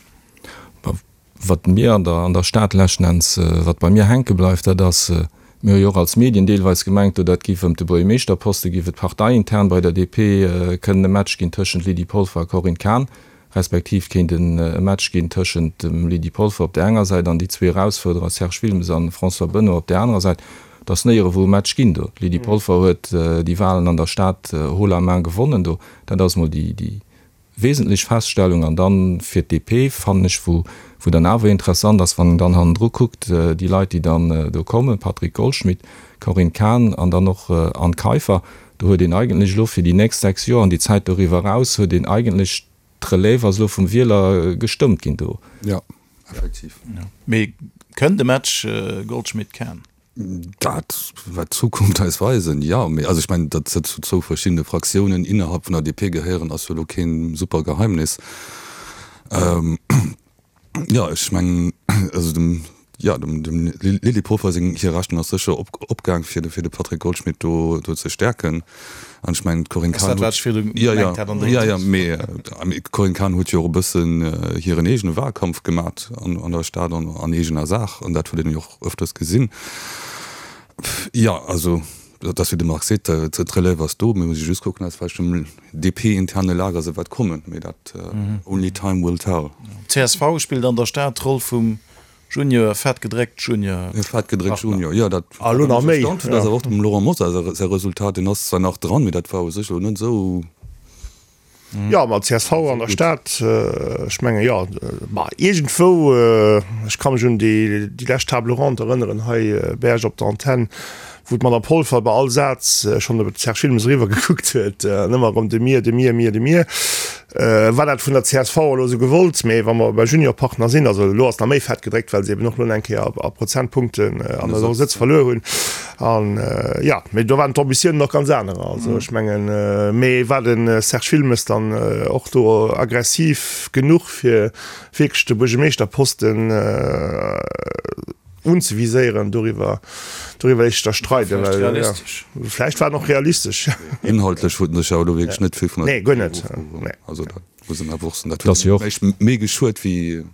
S5: Wat mir an der an der Stad leschten Enns, wat bei mir hänke bleift, dat ass, mir hu jo och als Medien deelweis gemengt, do dat géif ëm de Buergermeeschterposte géif et parteiintern bei der DP kënnen e Match ginn tëschent Lydie Polfer a Corinne Cahen. respektiv kéint en e Match ginn tëschent dem Lydie Polfer op där enger Säit an déi zwee Erausfuerderer Serge Wilmes an François Benoy op där anerer Säit. Et ass néierewou e Match ginn do. D'Lydie Polfer huet déi Wahlen an der Stad haut la main gewonnen do. Dat ass mol déi déi wesentlech Feststellung. An dann fir d'DP fannen ech, wou wou dann awer interessant ass, wann een dann hannendru kuckt, déi Leit déi dann do kommen, Patrick Goldschmidt, Corinne Cahen an dann och Anne Kaiffer, Do huet een eigentlech elo fir déi nächst 6 Joer an déi Zäit doriwwer eraus, huet een eigentlech, d'Relève ass elo vum Wieler gestëmmt ginn do.
S4: Jo, effektiv.
S3: Mee kënnt e Match Goldschmidt-Cahen?
S4: Dat wäert d'Zukunft eis weisen, jo. Mee also ech mengen, datt se zu zwou verschiddene Fraktiounen innerhalb vun der DP gehéieren, ass jo elo kee super Geheimnis. Jo, ech mengen, also dem, jo, dem, dem Lydie Polfer seng, hir Rechnung ass sécher op, opgaang, fir de, fir de Patrick Goldschmidt do, do ze stäerken. An ech mengen, d'Corinne Cahen huet, jo, jo, jo, jo, mee, mee d'Corinne Cahen huet jo och e bëssen hiren eegene Wahlkampf gemat an, an der Stad an, an eegener Saach. An dat huet een jo och ëfters gesinn. Jo, also. Et ass wéi de Marc seet, d'Relève ass do, mir musse just kucken, aus welchem DP-interne Lager se wat kommen, mee dat only time will tell.
S3: Csv spillt an der Stad d'Roll vum Junior, fett gedréckt Junior.
S4: Fett gedréckt Junior, jo, dat wat ech erstaunt hunn, ass awer och dem Laurent Mosar säi Resultat, deen ass zwar nach dran, mee dat war u sech elo net esou.
S6: Jo, ma csv an der Stad, ech mengen, jo, ma iergendwou, ech ka mech un déi lescht Table ronde erënneren hei bei Iech op der Antenn, wou d'Madame Polfer bei all Saz schonn op de Serge Wilmes eriwwer gekuckt huet an ëmmer erëm de mir, de mir, mir, de mir. War dat vun der csv elo esou gewollt? Mee wa mer bei Juniorpartner sinn, also elo ass nach méi fett gedréckt, well se eben och elo eng Kéier a Prozentpunkten an der Sëtz verluer hunn. An jo, mee do waren d'Ambitiounen och ganz anerer. Also ech mengen, mee war de Serge Wilmes dann och do aggressiv genuch, fir wierklech de Buergermeeschterposten unzeviséieren? Doriwwer, doriwwer léisst sech da streiden.
S3: Vläicht realistesch.
S6: Vläicht war en och realistesch.
S4: Inhaltlech huet en sech awer elo wierklech net vill vun der
S6: Nee, guer net.
S4: Nee. Also dat muss een awer och soen, dat huet méi geschuet wéi.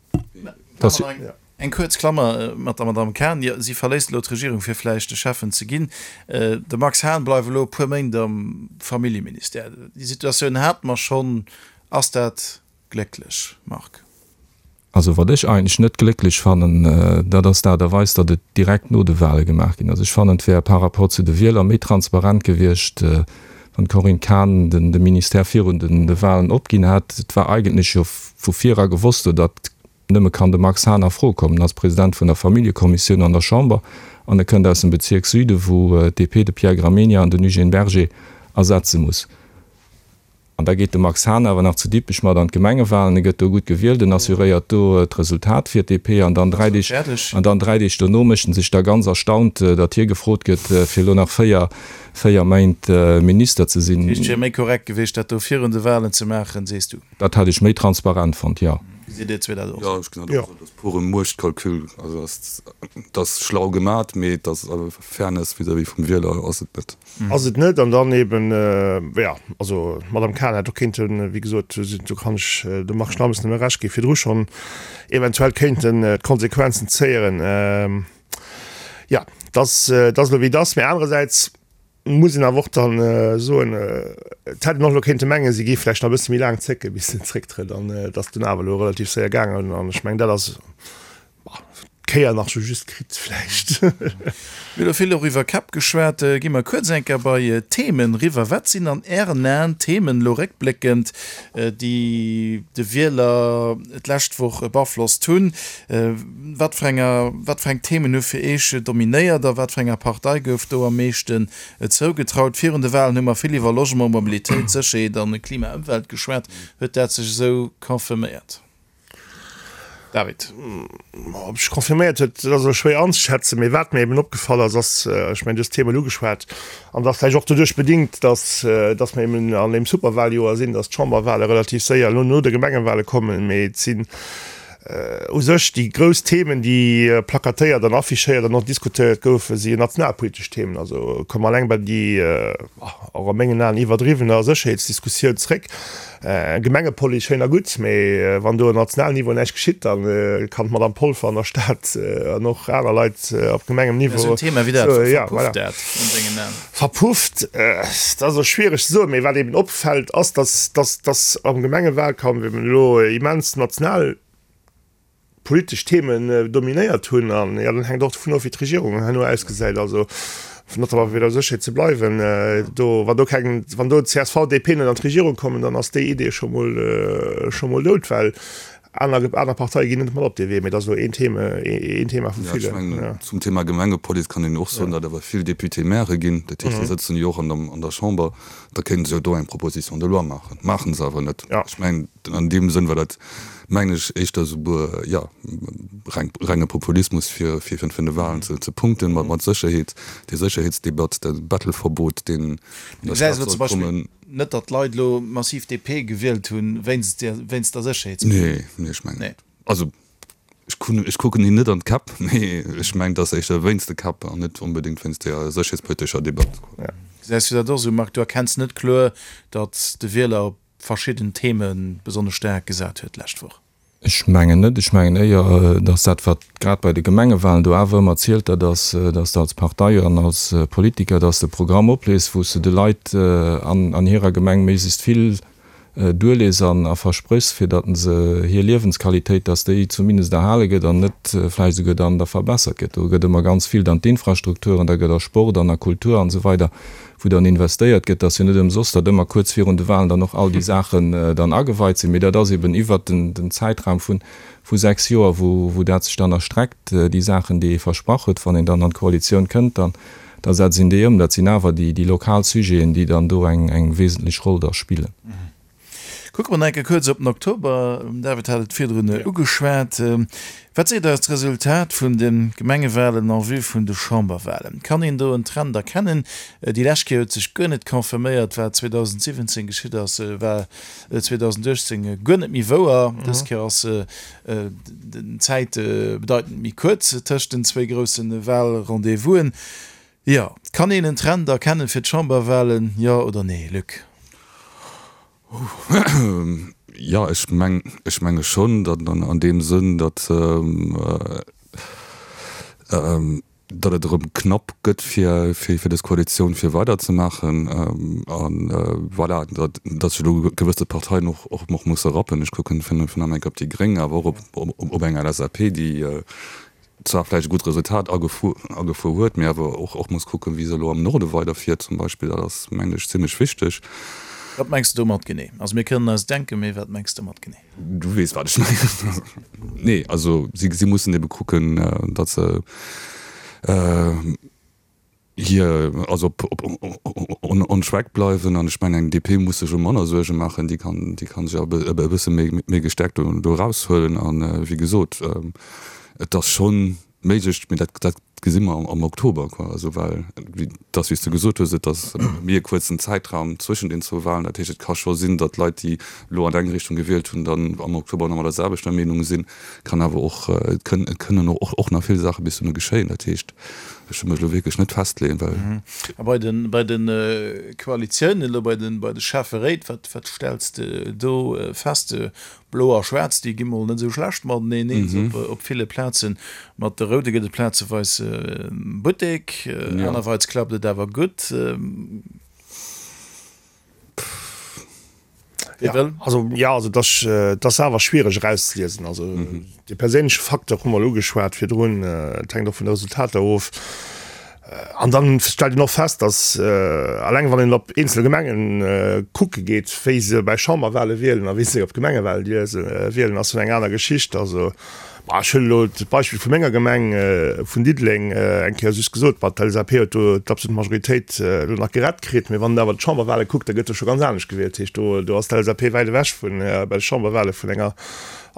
S3: Eng kuerz Klammer mat der Madamm Cahen, jo, si verléisst elo d'Regierung, fir vläicht de Schäffen ze ginn. De Max Hahn bleift elo e puer Méint am Familljeministère. Déi Situatioun hate mer schonn. Ass dat glécklech, Marc?
S5: Also wat ech eigentlech net glécklech fannen, dat ass d'Aart a Weis, datt et direkt no de Wahle gemaach ginn ass. Ech fannen, et wär par rapport zu de Wieler méi transparent gewiescht, wann d'Corinne Cahen de Ministère virun de Wahlen opginn hätt. Et war eigentlech jo vu vir era gewosst, oder datt Nëmme kann de Max Hahn a Fro kommen als President vun der Familljekommissioun an der Chamber an e kënnt aus dem Bezierk Süden, wou d'DP de Pierre Gramegna an den Eugène Berger ersetze muss. An da geet de Max Hahn awer nach zu Dippech mat an d'Gemengewahlen, e gëtt do gutt gewielt, en assuréiert do d'Resultat fir d'DP an dann 3 Deeg, an dann 3 Deeg dono mécht en sech da ganz erstaunt, datt hie gefrot gëtt, fir elo nach 4, 4 Méint Minister ze sinn.
S3: Dat heescht, et wier méi korrekt gewiescht, dat do virun de Wahlen ze maachen, sees du?
S5: Dat hätt ech méi transparent fonnt, jo.
S3: Gesitt Dir
S4: dat och esou? Jo, ech gesinn dat och esou. Dat ass pure Muechtkalkül. Also dat ass schlau gemat, mee et ass Fairness vis-à-vis vum Wieler ass et net.
S6: Ass et net. An dann eben, jo, also d'Madame Cahen hätt och kéinten, wéi gesot, do kann ech dem Marc Schnammes nëmme Recht ginn, virdru schonn eventuell kéinten d'Konsequenzen zéieren. Jo, et ass elo wéi et ass. Mee anerersäits Muss een awer och dann soen, et hätt een och elo kéinte mengen, si géif vläicht nach e bësse méi laang zécken, bis se zrécktrëtt, an et ass dunn awer elo relativ séier gaangen. An ech mengen, dat ass d'Kéier nach sou just kritt vläicht.
S3: Mir hu elo vill och iwwer Käpp geschwat. Gi mer kuerz eng Kéier bei d'Themen eriwwer. Wat sinn an Ären Aen d'Themen, elo réckbléckend, déi de Wieler d'lescht Woch beaflosst hunn? Wat fir enger, wat fir eng Themen hu fir Eech dominéiert a wat fir enger Partei gouf do am meeschten zougetraut? Virun de Walen hu mer vill iwwer Logement, Mobilitéit, Sécherheet an Klima, Ëmwelt geschwat. Huet dat sech esou confirméiert? David.
S6: Ob sech confirméiert huet, dat ass elo schwéier anzeschätzen. Mee wat mir eben opgefall ass, ass, ech mengen, du hues d'Themen ugeschwat, an dat ass vläicht och doduerch bedingt, dass, dass mer eben an deem Superwahljoer sinn, dass d'Chamberwahle relativ séier elo no de Gemengewahle kommen. Mee et sinn U sech déi grouss Themen, déi plakatéiert an affichéiert an och diskutéiert goufen, si nationalpolitesch Themen. Also komme mer eleng bei déi, och a mengen Aen iwwerdriwwener Sécherheetsdiskussioun zréck. Gemengepolice schéin a gutt, mee wann do um nationalen Niveau näischt geschitt, da kann d'Madame Polfer an der Stad an och aner Leit op Gemengenniveau.
S3: Esou en Thema wéi dat, verpufft dat an dengen Aen?
S6: Verpufft, dat ass elo schwiereg ze soen, mee wat eben opfält, ass, dass, dass, dass am Gemengewahlkampf eben elo immens national politesch Themen dominéiert hunn. An jo, dat hänkt och dovun of, wéi d'Regierung herno ausgesäit. Also notamment fir bei der Sécherheet ze bleiwen, do, wann do keng, wann do csv, DP net an d'Regierung kommen, dann ass déi Idee scho mol, scho mol dout, well Aner, aner Parteie ginn net mat op dee Wee, mee dat ass elo een Thema, een Thema vu
S4: villen. Ja, ech mengen, zum Thema Gemengepolice kann een och soen, datt awer vill Députés-mairë ginn. Dat heescht, déi sëtzen jo och an der, an der Chamber. Da kéinte se jo do eng Proposition de loi maachen. Maache se awer net. Ech mengen, an deem Sënn war dat, mengen ech, éischter esouguer, jo, reng, renge Populismus, fir, fir virun de Wahlen ze, ze punkten, mat, mat Sécherheet, déi Sécherheetsdebatt, dat Bettelverbot, deen
S3: an der Stad soll kommen. Net datt d'Leit elo massiv DP gewielt hunn wéinst wéinst der
S4: Sécherheetspolitik. Nee, nee, ech mengen net. Also ech kun ech kucken hinne net an d'Käpp, mee ech mengen, et ass éischter wéinst de Käpp an net onbedéngt wéinst der sécherheetspolitescher Debatt.
S3: Gesäis du dat och esou, Marc? Du erkenns net kloer, datt de Wieler op verschidden Theme besonnesch staark gesat huet d'lescht Woch?
S5: Ech mengen net. Ech mengen éier, datt dat, wat grad bei de Gemengewahlen do awer ëmmer zielt, dat ass, datt s de als Partei an als Politiker, datt s de e Programm oplees, wou s de de Leit an hirer Gemeng méiglechst vill duerlees an a verspréchs, fir datt se hir Liewensqualitéit, datt déi zumindest erhale gëtt an net vläicht esouguer dann da verbessert gëtt. Do gëtt ëmmer ganz vill dann d'Infrastrukturen, da gëtt a Sport an a Kultur an esou weider, wou dann investéiert gëtt. Dat ass jo net ëmsoss, datt ëmmer kuerz virun de Wahlen dann och all déi Saachen dann ageweit sinn, mee dat ass eben iwwert den Zäitraum vu vu 6 Joer, wou wou dat sech dann erstreckt, déi Saachen, déi ee versprach huet. Wann een dann an d'Koalitioun kënnt, dann da setzt een déi ëm. Dat sinn awer déi déi lokal Sujeten, déi dann do eng eng wesentlech Roll da spillen.
S3: Kucke mer nach eng Kéier kuerz op den Oktober. Den David hat et virdrun ugeschwat. Wat seet eis d'Resultat vun de Gemengewalen en vue vun de Chamberwalen? Kann een do en Trend erkennen? Déi lescht Kéier huet sech guer net confirméiert, wat 2017 geschitt ass, war 2018 guer net méi wouer. Dës Kéier ass den Zäit bedeitend méi kuerz tëscht den zwéi grousse Wahlrendez-vousen. Jo, kann een en Trend erkennen fir d'Chamberwahlen, jo oder nee, Luc?
S4: Jo, ech meng, ech menge schonn, datt an deem Sënn, datt datt et erëm knapp gëtt fir fir dës Koalitioun fir weiderzemaachen a voilà, datt datt sech elo gewësse Parteien och och och musse rappen. Ech kucken vun vun am enk op déi Gréng, awer och op op eng LSAP, déi zwar vläicht e gutt Resultat agefuer agefuer huet, mee awer och och muss kucken, wéi se elo am Norde weiderfiert zum Beispill. Dat ass, mengen ech, zimlech wichteg.
S3: Wat mengs de domat genee? Also mir kënnen eis denken, mee wat mengs de domat genee?
S4: Du weess, wat ech mengen. Nee, also si, si mussen ebe kucken, datt se hir, also op, op, on, on track bleiwen. An ech mengen, eng DP muss sech elo manner Suerge maachen, déi kann, déi kann sech e bësse méi, méi gestärkt do, do eraushuelen. An, wéi gesot, et ass schonn méiglech, mee dat, dat gesi mer am Oktober, quoi. Also well, wéi dass, wéi s de gesot hues, et ass méi e kuerzen Zäitraum zwëschen den zwou Wahlen. Dat heescht, et ka scho sinn, datt Leit, déi elo an eng Richtung gewielt hunn, dann am Oktober nach ëmmer der selwechter Meenung sinn. Kann awer och, et kënn, et kënnen och, och nach vill Saache bis dohinner geschéien. Dat heescht, ech wëll mech elo wierklech net festleeën, well.
S3: A bei de, bei de Koalitiounen, elo bei de, bei de Schäfferéit, wat, wat stells de do fest? Blo a Schwaarz, déi gi mol net esou schlecht mateneen eens op ville Plazen. Mat de Roude gëtt et plazeweis Buttek, anerweits klappt et awer gutt.
S6: Wie wëll? Also jo, also et ass awer schwiereg erauszeliesen. Also de perséinleche Facteur hu mer elo ugeschwat virdrun, et hänkt och vun de Resultater of. An dann stellt een och fest, datt alleng wann een op eenzel Gemengen kucke geet, wéi se bei Chamberwahle wielen a wéi se op Gemengewahle wielen, ass schonn eng aner Geschicht. Also ech huelen elo d'Beispill vu menger Gemeng, vun Diddeleng, eng Kéier just gesot, bon, d'LSAP huet do d'absolut Majoritéit elo nach gerett kritt, mee wann een awer d'Chamberwahle kuckt, da gëtt do scho ganz anescht gewielt. Dat heescht, do do ass d'LSAP wäit ewech vun bei de Chamberwahle vun enger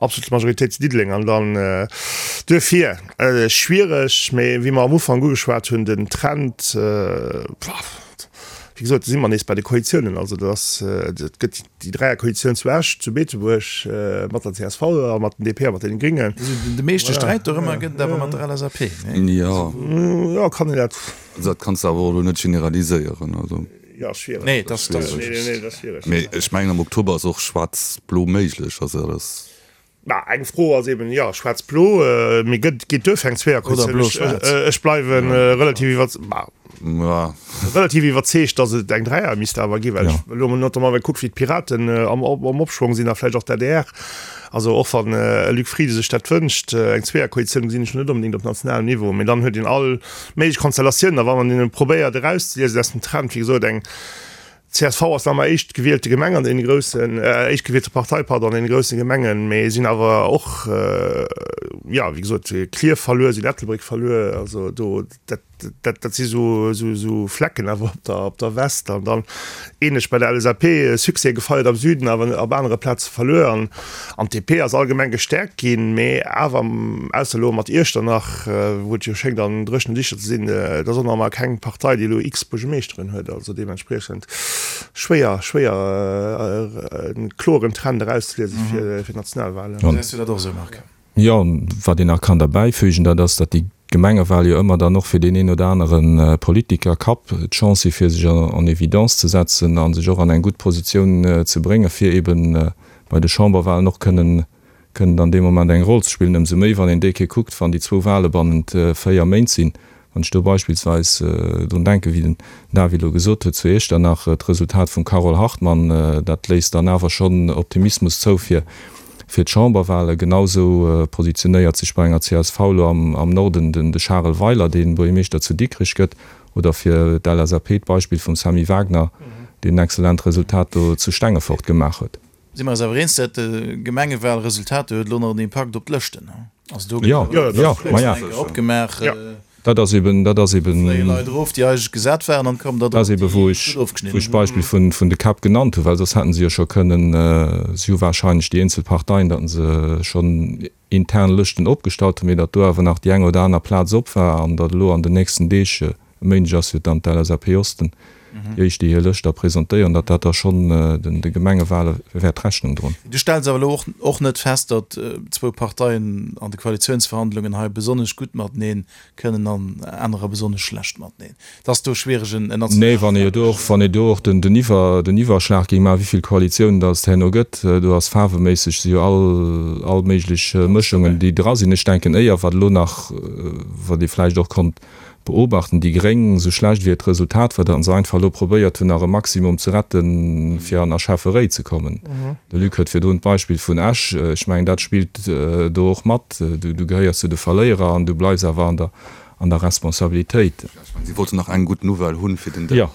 S6: absoluter Majoritéit zu Diddeleng. An dann duerfir, Schwiereg, mee wéi mer am Ufank ugeschwat hunn, den Trend, wéi gesot, do si mer nees bei de Koalitiounen. Also dat ass, et gëtt déi Dräierkoalitioun zu Esch, zu Beetebuerg mat der csv a mat den DP a mat deene Gringen.
S3: De meeschte Sträit dorëmmer gëtt et awer mat der LSAP,
S4: nee? Jo.
S6: Jo, kann een dat.
S4: Dat kanns de awer och elo net generaliséieren, also.
S6: Jo, schwiereg.
S3: Nee, dat ass schwiereg.
S4: Mee ech mengen, am Oktober ass och schwaarz-blo méiglech. Also dat ass.
S6: Mä eng Fro ass eben, jo, schwaarz-blo, mee gëtt, geet duerfir eng Zweeërkoalitioun? Ech, ech bleiwe relativ iwwer, relativ iwwerzeegt, datt et eng Dräier misst awer ginn, well ech elo notamment well kuck wéi d'Piraten am, am Opschwong sinn a vläicht och d'ADR. Also och wann e Luc Frieden sech dat wënscht, eng Zweeërkoalitioun gesinn ech net onbedéngt op nationalem Niveau, mee dann huet een all méiglech Konstellatiounen a wann een probéiert erauszeliesen aus dem Trend, wéi gesot, eng Csv ass nach ëmmer éischtgewielte Gemeng an deene groussen, éischtgewielte Partei, pardon, an deene grousse Gemengen, mee sinn awer och, jo, wéi gesot, Klierf verluer, sinn Ettelbréck verluer, also do, dat, dat, dat si sou, sou, sou Flecken awer op der, op der West. An dann ähnlech bei der LSAP, Succès gefeiert am Süden, awer op anere Plaze verluer. An, an d'DP ass allgemeng gestäerkt ginn, mee awer, ausser elo mat Iechternach, wou et jo schéngt an dréchenen Dicher ze sinn, et ass och nach ëmmer keng Partei, déi elo x Buergemeeschteren huet. Also deementspriechend schwéier, schwéier e kloren Trend erauszeliese fir d'Nationalwahlen.
S3: Gesäis du dat och esou, Marc?
S5: Jo, wat een nach kann derbäifügen, dat ass, datt déi Gemengewahl jo ëmmer dann och fir deen een oder anere Politiker Kapp d'Chance si fir sech en évidence ze setzen a sech och an eng gutt Positioun ze bréngen, fir eeben bei de Chamberwahlen och kënnen. Kënnen dann dee Moment eng Roll ze spillen, ëmsou méi wann een déi Kéier kuckt, wann déi zwou Wahle bannent 4 Méint sinn. Wann ech do beispillsweis drun denken, wéi den David elo gesot huet, zu Iechternach, d'Resultat vum Carole Hartmann, dat léisst dann awer schonn Optimismus zou fir fir d'Chamberwahle. Genausou positionéiert sech bei enger csv elo am Norden den de Charel Weiler, dee Buergermeeschter zu Dikrech gëtt, oder fir d'LSAP d'Beispill vum Sammy Wagner, deen en excellent Resultat do zu Stengefort gemaach huet.
S3: Si mer eis awer eens, dat Gemengewahlresultat huet elo nach en Impakt op d'Lëschten. Also do
S5: gëtt jo eng Kéier
S3: opgemaach.
S5: Dat ass eben, dat ass eben.
S3: Fléie Leit erof, déi eigentlech gesat waren, an kommen der
S5: drop, déi gutt ofgeschnidden hunn. Wou ech d'Beispill vun, vun de Käpp genannt hunn, well soss hätten se jo scho kënnen, si hu wahrscheinlech déi eenzel Parteien, datt se schonn intern Lëschten opgestallt hunn, mee datt do awer nach déi eng oder aner Plaz op war an datt elo an den nächsten Deeg, e Méindeg ass jo dann d'LSAP Osten déi éischt, déi hir Lëscht da presentéieren, datt dat da schonn de Gemengewale wäert Rechnung droen.
S3: Du stells awer elo och net fest, datt zwou Parteien an de Koalitiounsverhandlungen hei besonnesch gutt matenee kënnen an anerer besonnesch schlecht mateneen. Et ass do schwiereg en
S5: nationale Nee, wann ee do och, wann ee do och den, den Iwwer, den Iwwerschlag géing maachen, wéi vill Koalitiounen datt et herno gëtt, do ass faarweméisseg si jo all, all méiglech Mëschungen, déi dra sinn. Ech denken éier, wat elo nach, wat ee vläicht och konnt beobachten, déi Gréng, esou schlecht wéi et Resultat war, datt se einfach elo probéiert hunn, nach e Maximum ze retten, fir an Schäfferéi ze kommen. De Luc huet virdrun d'Beispill vun Esch, ech mengen, dat spillt do och mat. Du, du gehéiers zu de Verléierer an du bleifs awer an der, an der Responsabilitéit.
S4: Ech mengen, si wollten nach eng gutt Nouvelle hunn fir den Dësch.
S5: Jo.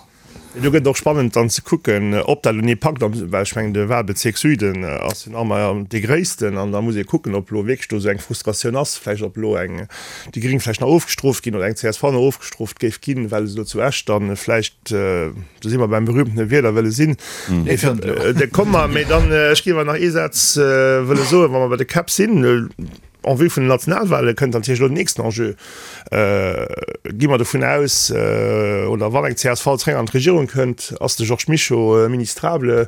S6: Mee do gëtt et och spannend dann ze kucken, ob dat elo packt, well ech mengen de Wahlbezierk Süden ass jo nach ëmmer dee gréissten an da muss ee kucken, ob elo wierklech do esou eng Frustratioun ass, vläicht ob elo eng déi Gréng vläicht nach ofgestrooft ginn oder eng csv nach ofgestrooft géif ginn, well se elo zu Esch dann vläicht, do si mer beim berühmtene Wielerwëlle sinn, da komme mer, mee dann, ech géif awer nach ee Saz wëlle soen, wa mer bei de Käpp sinn. En vue vun den Nationalwale kënnt natierlech elo den nächsten Enjeu. Gi mer dovun aus, oder wann eng csv zeréck an d'Regierung kënnt, ass de Georges Mischo ministrable,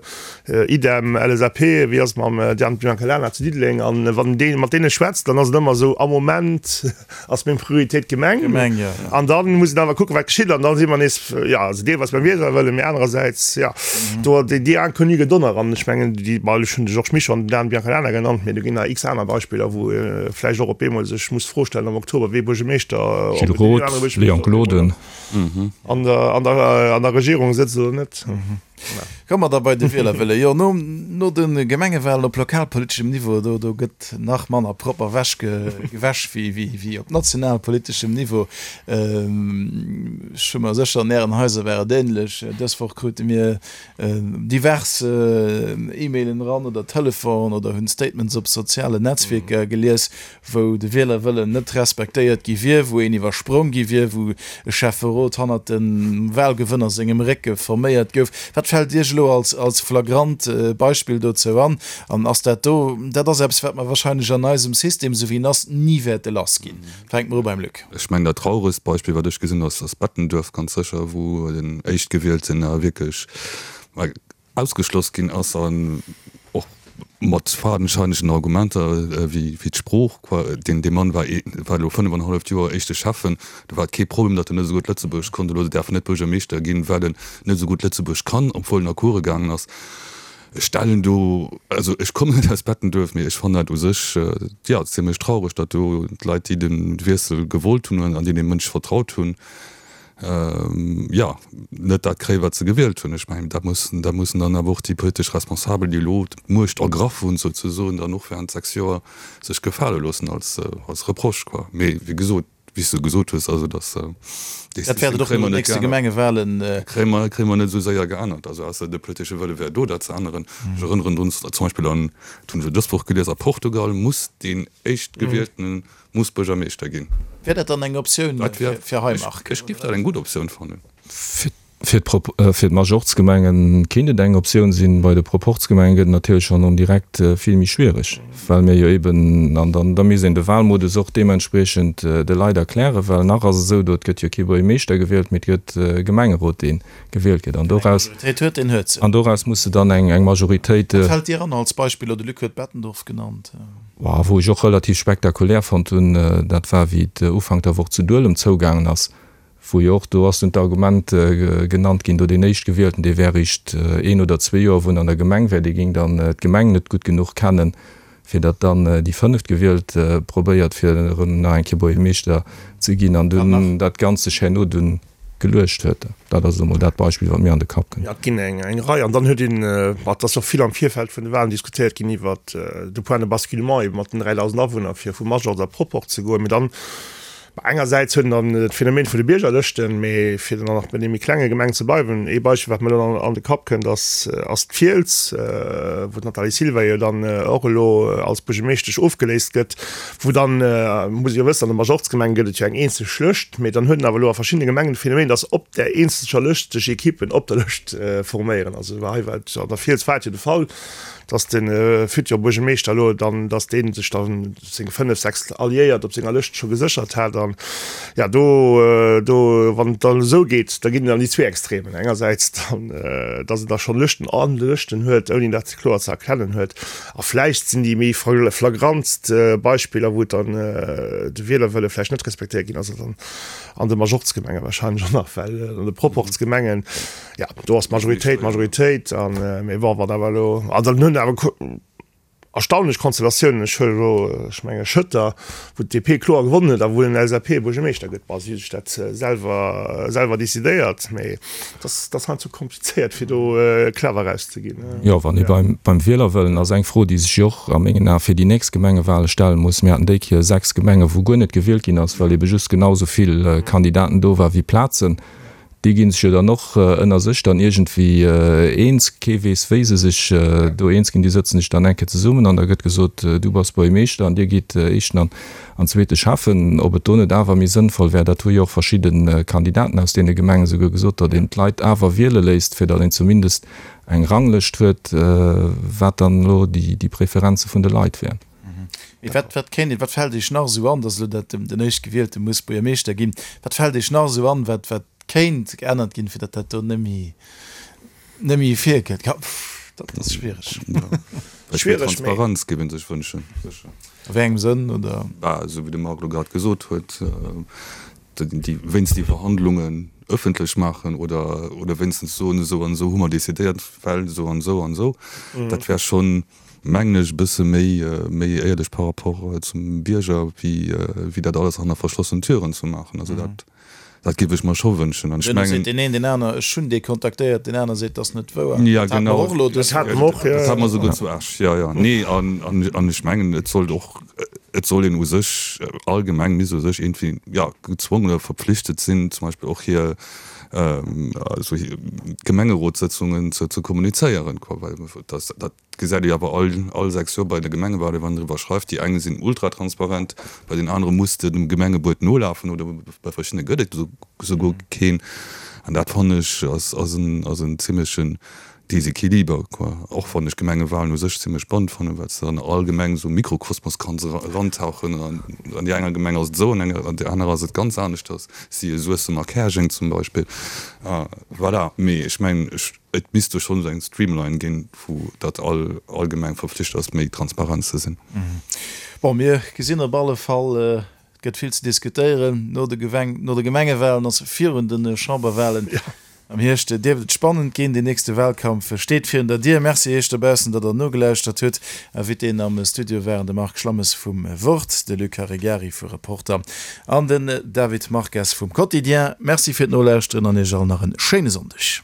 S6: idem LSAP, wéi ass et mam Diane Biancalana zu Diddeleng? An wann een mat deene schwätzt, dann ass et ëmmer esou, am Moment ass meng Prioritéit d'Gemeng. An da muss een awer kucken, wat geschitt. An da si mer nees, jo, also deelweis beim Wielerwëllen, mee anerersäits, jo, do déi Inconnue gëtt och nach. An ech mengen, déi, bon, ech hunn de Georges Mischo an den Dan Biancalana genannt, mee do ginn nach x aner Beispiller, wou ee vläicht och op eemol sech muss d'Fro stellen am Oktober, wee Buergermeeschter,
S5: ob Gilles et deen anere
S6: Roth, Léon
S5: Buergermeeschter op eemol
S6: Gloden. an der, an der, an der Regierung sëtzt oder net.
S3: Komme mer da bei de Wielerwëlle. Jo, no, no de Gemengewahlen op lokalpoliteschem Niveau, do, do gëtt nach manner propper wäsch ge, gewäsch wéi, wéi, wéi op nationalpoliteschem Niveau. Ech hu mer sécher, an Ären Haiser war et ähnlech. Dës Woch krute mir divers E-Mailen eran oder Telefon oder hunn Statements op sozialen Netzwierker gelies, wou de Wielerwëllen net respektéiert gi wier, wou een iwwersprong gi wier, wou e Schäfferot hannert dem Wahlgewënner sengem Récke forméiert gouf. Wat fält Iech elo als als flagrant Beispill dozou an? An ass dat do, dat ass eppes, wat mer wahrscheinlech an eisem System, esou wéi en ass, ni wäerte lass ginn. Fänke mer u beim Luc.
S4: Ech mengen, dat trauregst Beispill, wat ech gesinn, ass Bettenduerf ganz sécher, wou den Éischtgewielten wierklech ausgeschloss ginn ass an och mat fadenscheinegen Argumenter wéi d'Sprooch. Deen dee Mann war war elo 5 an e halleft Joer éischte Schäffen, do war et kee Problem, datt en net esou gutt Lëtzebuergesch konnt. Elo däerf en net Buergermeeschter ginn, well en net esou gutt Lëtzebuergesch kann, obwuel en a Coure gaangen ass. Ech stellen do, also ech kommen net aus Bettenduerf, mee ech fannen dat u sech, jo, zimlech traureg, datt do d'Leit, déi de Wiessel gewollt hunn an déi deem Mënsch vertraut hunn, jo, net dat kréien, wat se gewielt hunn. Ech mengen, dat mussen, dat mussen dann awer och déi politesch Responsabel, déi elo d'Muecht ergraff hunn, souzesoen, dann och während 6 Joer sech gefale loossen als, als Reproche, quoi. Mee wéi gesot, wéi s de gesot hues, also dass
S3: dee Dat wäert et och no den nächste Gemengewahlen.
S4: Kréie mer, kréie mer net esou séier geännert. Also ausser de politesche Wëlle wär do, dat ze änneren. Ech erënneren drun, zum Beispill an, dat hunn ech elo dës Woch gelies, a Portugal muss deen Éischtgewieltene muss Buergermeeschter ginn.
S3: Wär dat dann eng Optioun fir hei, Marc?
S4: Ech géif dat eng gutt Optioun fannen.
S5: Fir d'Majorzgemenge kéint et eng Optioun sinn. Bei de Proporzgemenge gëtt et natierlech schonn en direct vill méi schwiereg, well mir jo eben, an dann da misst een de Wahlmodus och deementspriechend de Leit erklären, well nach ass et esou, do et gëtt jo kee Buergermeeschter gewielt, mee et gëtt e Gemengerot, dee gewielt gëtt. An doraus, an doraus muss de dann eng Majoritéit.
S3: Wat fält dir an als Beispill? Oder de Luc huet Bettendorf genannt.
S5: Wou ech och relativ spektakulär fonnt hunn, dat war wéi et Ufank der Woch zu Duelem zougaangen ass, wou jo och, do ass dunn d'Argument genannt ginn, do deen Éischtgewielten, dee wär eréischt een oder zwee Joer, wou en an der Gemeng wär, dee géing dann d'Gemeng net gutt genuch kennen, Fir datt dann déi Fënneftgewielt probéiert fir erëm nach eng Kéier Buergermeeschter ze ginn an dunn dat Ganzt sech herno dunn geluecht huet. Dat ass elo mol dat Beispill, wat mir an de Kapp
S6: kënnt. Jo, et ginn eng Rei. An dann huet een, ma et ass och vill am Virfeld vun de Wahlen diskutéiert ginn iwwert de Point de basculement ebe mat den 3.000 Awunner, fir vu Majorz a Proport ze goen. Mee dann Engersäits huet en dann d'Phänomen vun de Biergerlëschten, mee fir dann nach bei deene méi klenge Gemengen ze bleiwen, ee Beispill wat mir elo an de Kapp kënnt ass ass d'Fiels, wou d'Nathalie Silva jo dann och elo als Buergermeeschtesch ofgeléist gëtt, wou dann, muss ee jo wëssen, an de Majorzgemenge gëtt et jo eng eenzeg Lëscht, mee dann huet en awer elo a verschiddene Gemengen de Phänomen, datt op där eenzeger Lëscht sech Ekippen op der Lëscht forméieren. Also hei war et an der Fiels war et jo de Fall, dass de futur Buergermeeschter elo dann, dass dee sech dann seng 5, 6 Alliéiert op senger Lëscht scho geséchert hat an ja do, do wann et dann esou geet, da ginn et an déi zwee Extremen, engersäits dann, dass en da schonn Lëschten an Lëschten huet, ouni dat kloer ze erkennen huet a vläicht sinn déi méi flagrantst Beispiller, wou et dann de Wielerwëlle vläicht net respektéiert ginn ass, dann an de Majorzgemenge wahrscheinlech och nach, well an de Proporzgemengen, Ja, do ass d'Majoritéit d'Majoritéit an mee bon, wat awer elo, also dann hunn awer erstaunlech Konstellatiounen, ech huelen elo, ech menge Schëtter, wou d'DP kloer gewonnen huet a wou en LSAP-Buergermeeschter gëtt. Bon, si hu sech dat selwer selwer decidéiert, mee et ass, et ass heiansdo komplizéiert fir do clever erauszeginn.
S5: Jo, wann ee beim beim Wielerwëllen ass, eng Fro, déi sech jo och a mengen Ae fir déi nächst Gemengewale stelle muss, Mir haten déi Kéier 6 Gemenge wou guer net gewielt ginn ass, well ebe just genau esou vill Kandidaten do war wéi Plazen. Déi ginn sech jo dann och ënner sech dann iergendwéi eens. Kee weess, wéi se sech do eens ginn. Déi sëtzen sech dann eng Kéier zesummen an da gëtt gesot, Du bass Buergermeeschter an Dir gitt éischten an an zweete Schäffen. Ob et do net awer méi sënnvoll wär, dat hu jo och verschidde Kandidaten aus deene Gemengen esouguer gesot, datt een d'Leit awer wiele léisst, fir datt een zumindest eng Ranglëscht huet, wat dann elo déi Preferenze vun de Leit wären.
S3: Mee wat, wat kéint een, wat fält Iech nach esou an, dass elo dat den Éischtgewielte muss Buergermeeschter ginn, wat fält Iech nach esou an, wat, wat kéint geännert ginn, fir datt dat do net méi, net méi virkënnt? Ka, pff, dat ass schwiereg.
S4: Méi Transparenz géif ee sech wënschen,
S3: sécher. A wéi engem Sënn, oder?
S4: Bah, esou wéi de Marc elo grad gesot huet, déi, wéinst déi Verhandlungen ëffentlech maachen oder, oder wéinstens soen, esou an esou hu mer decidéiert, well esou an esou an esou. Dat wär schonn, mengen ech, e bësse méi, méi éierlech par rapport zum Bierger, wéi, wéi dat alles hanner verschlossenen Türen ze maachen. Also dat, dat géif ech mer scho wënschen.
S3: An ech mengen. Seet deen een, deen aner, ech hunn dee kontaktéiert, deen aner seet, dat ass net wouer.
S4: Ja, genau. Dat hate mer och elo dës. Dat hate mer och, jo. Dat hate mer esouguer zu Esch, jo, jo. Nee, an, an, an ech mengen, et sollt och, et soll een u sech, all Gemeng misst u sech iergendwéi, ja, gezwongen oder verpflichtet sinn, zum Beispill och hir, also hir Gemengerotssëtzungen ze, ze kommunizéieren, quoi, well dat, dat gesäit ee awer all, all 6 Joer bei de Gemengewahlen, wann een driwwer schreift, déi eng sinn ultratransparent, bei den anere muss de dem Gemengebuet nolafen oder bei verschiddene gëtt et esouguer keen. An dat fannen ech ass, ass en, ass en zimlechen Desequiliber, quoi. Och wann ech Gemengewahlen u sech zimlech spannend fannen, well s de an all Gemeng esou Mikrokosmos kanns erantauchen. An an déi enger Gemeng ass et esou, an enger, an där anerer ass et ganz aneschters, siehe Suessem a Käerjeng zum Beispill. Voilà, mee ech mengen, ech, et misst do schonn esou eng Streamline ginn, vu datt all, all Gemeng verpflicht ass, méi transparent ze sinn.
S3: Bon, mir gesinn op alle Fall, Et gëtt vill ze diskutéieren no de no de Gemengewalen, also virun de Chamberwalen. Am Hierscht dierft et spannend ginn. Deen nächste Walkampf steet virun der Dier. Merci Iech dobaussen, datt der nogelauschtert hutt. Invitéen am Studio waren de Marc Schlammes vum Wort, de Luc Caregari vu Reporter an den David Marques vum Quotidien. Merci fir d'Nolauschteren an Iech all nach e schéine Sonndeg.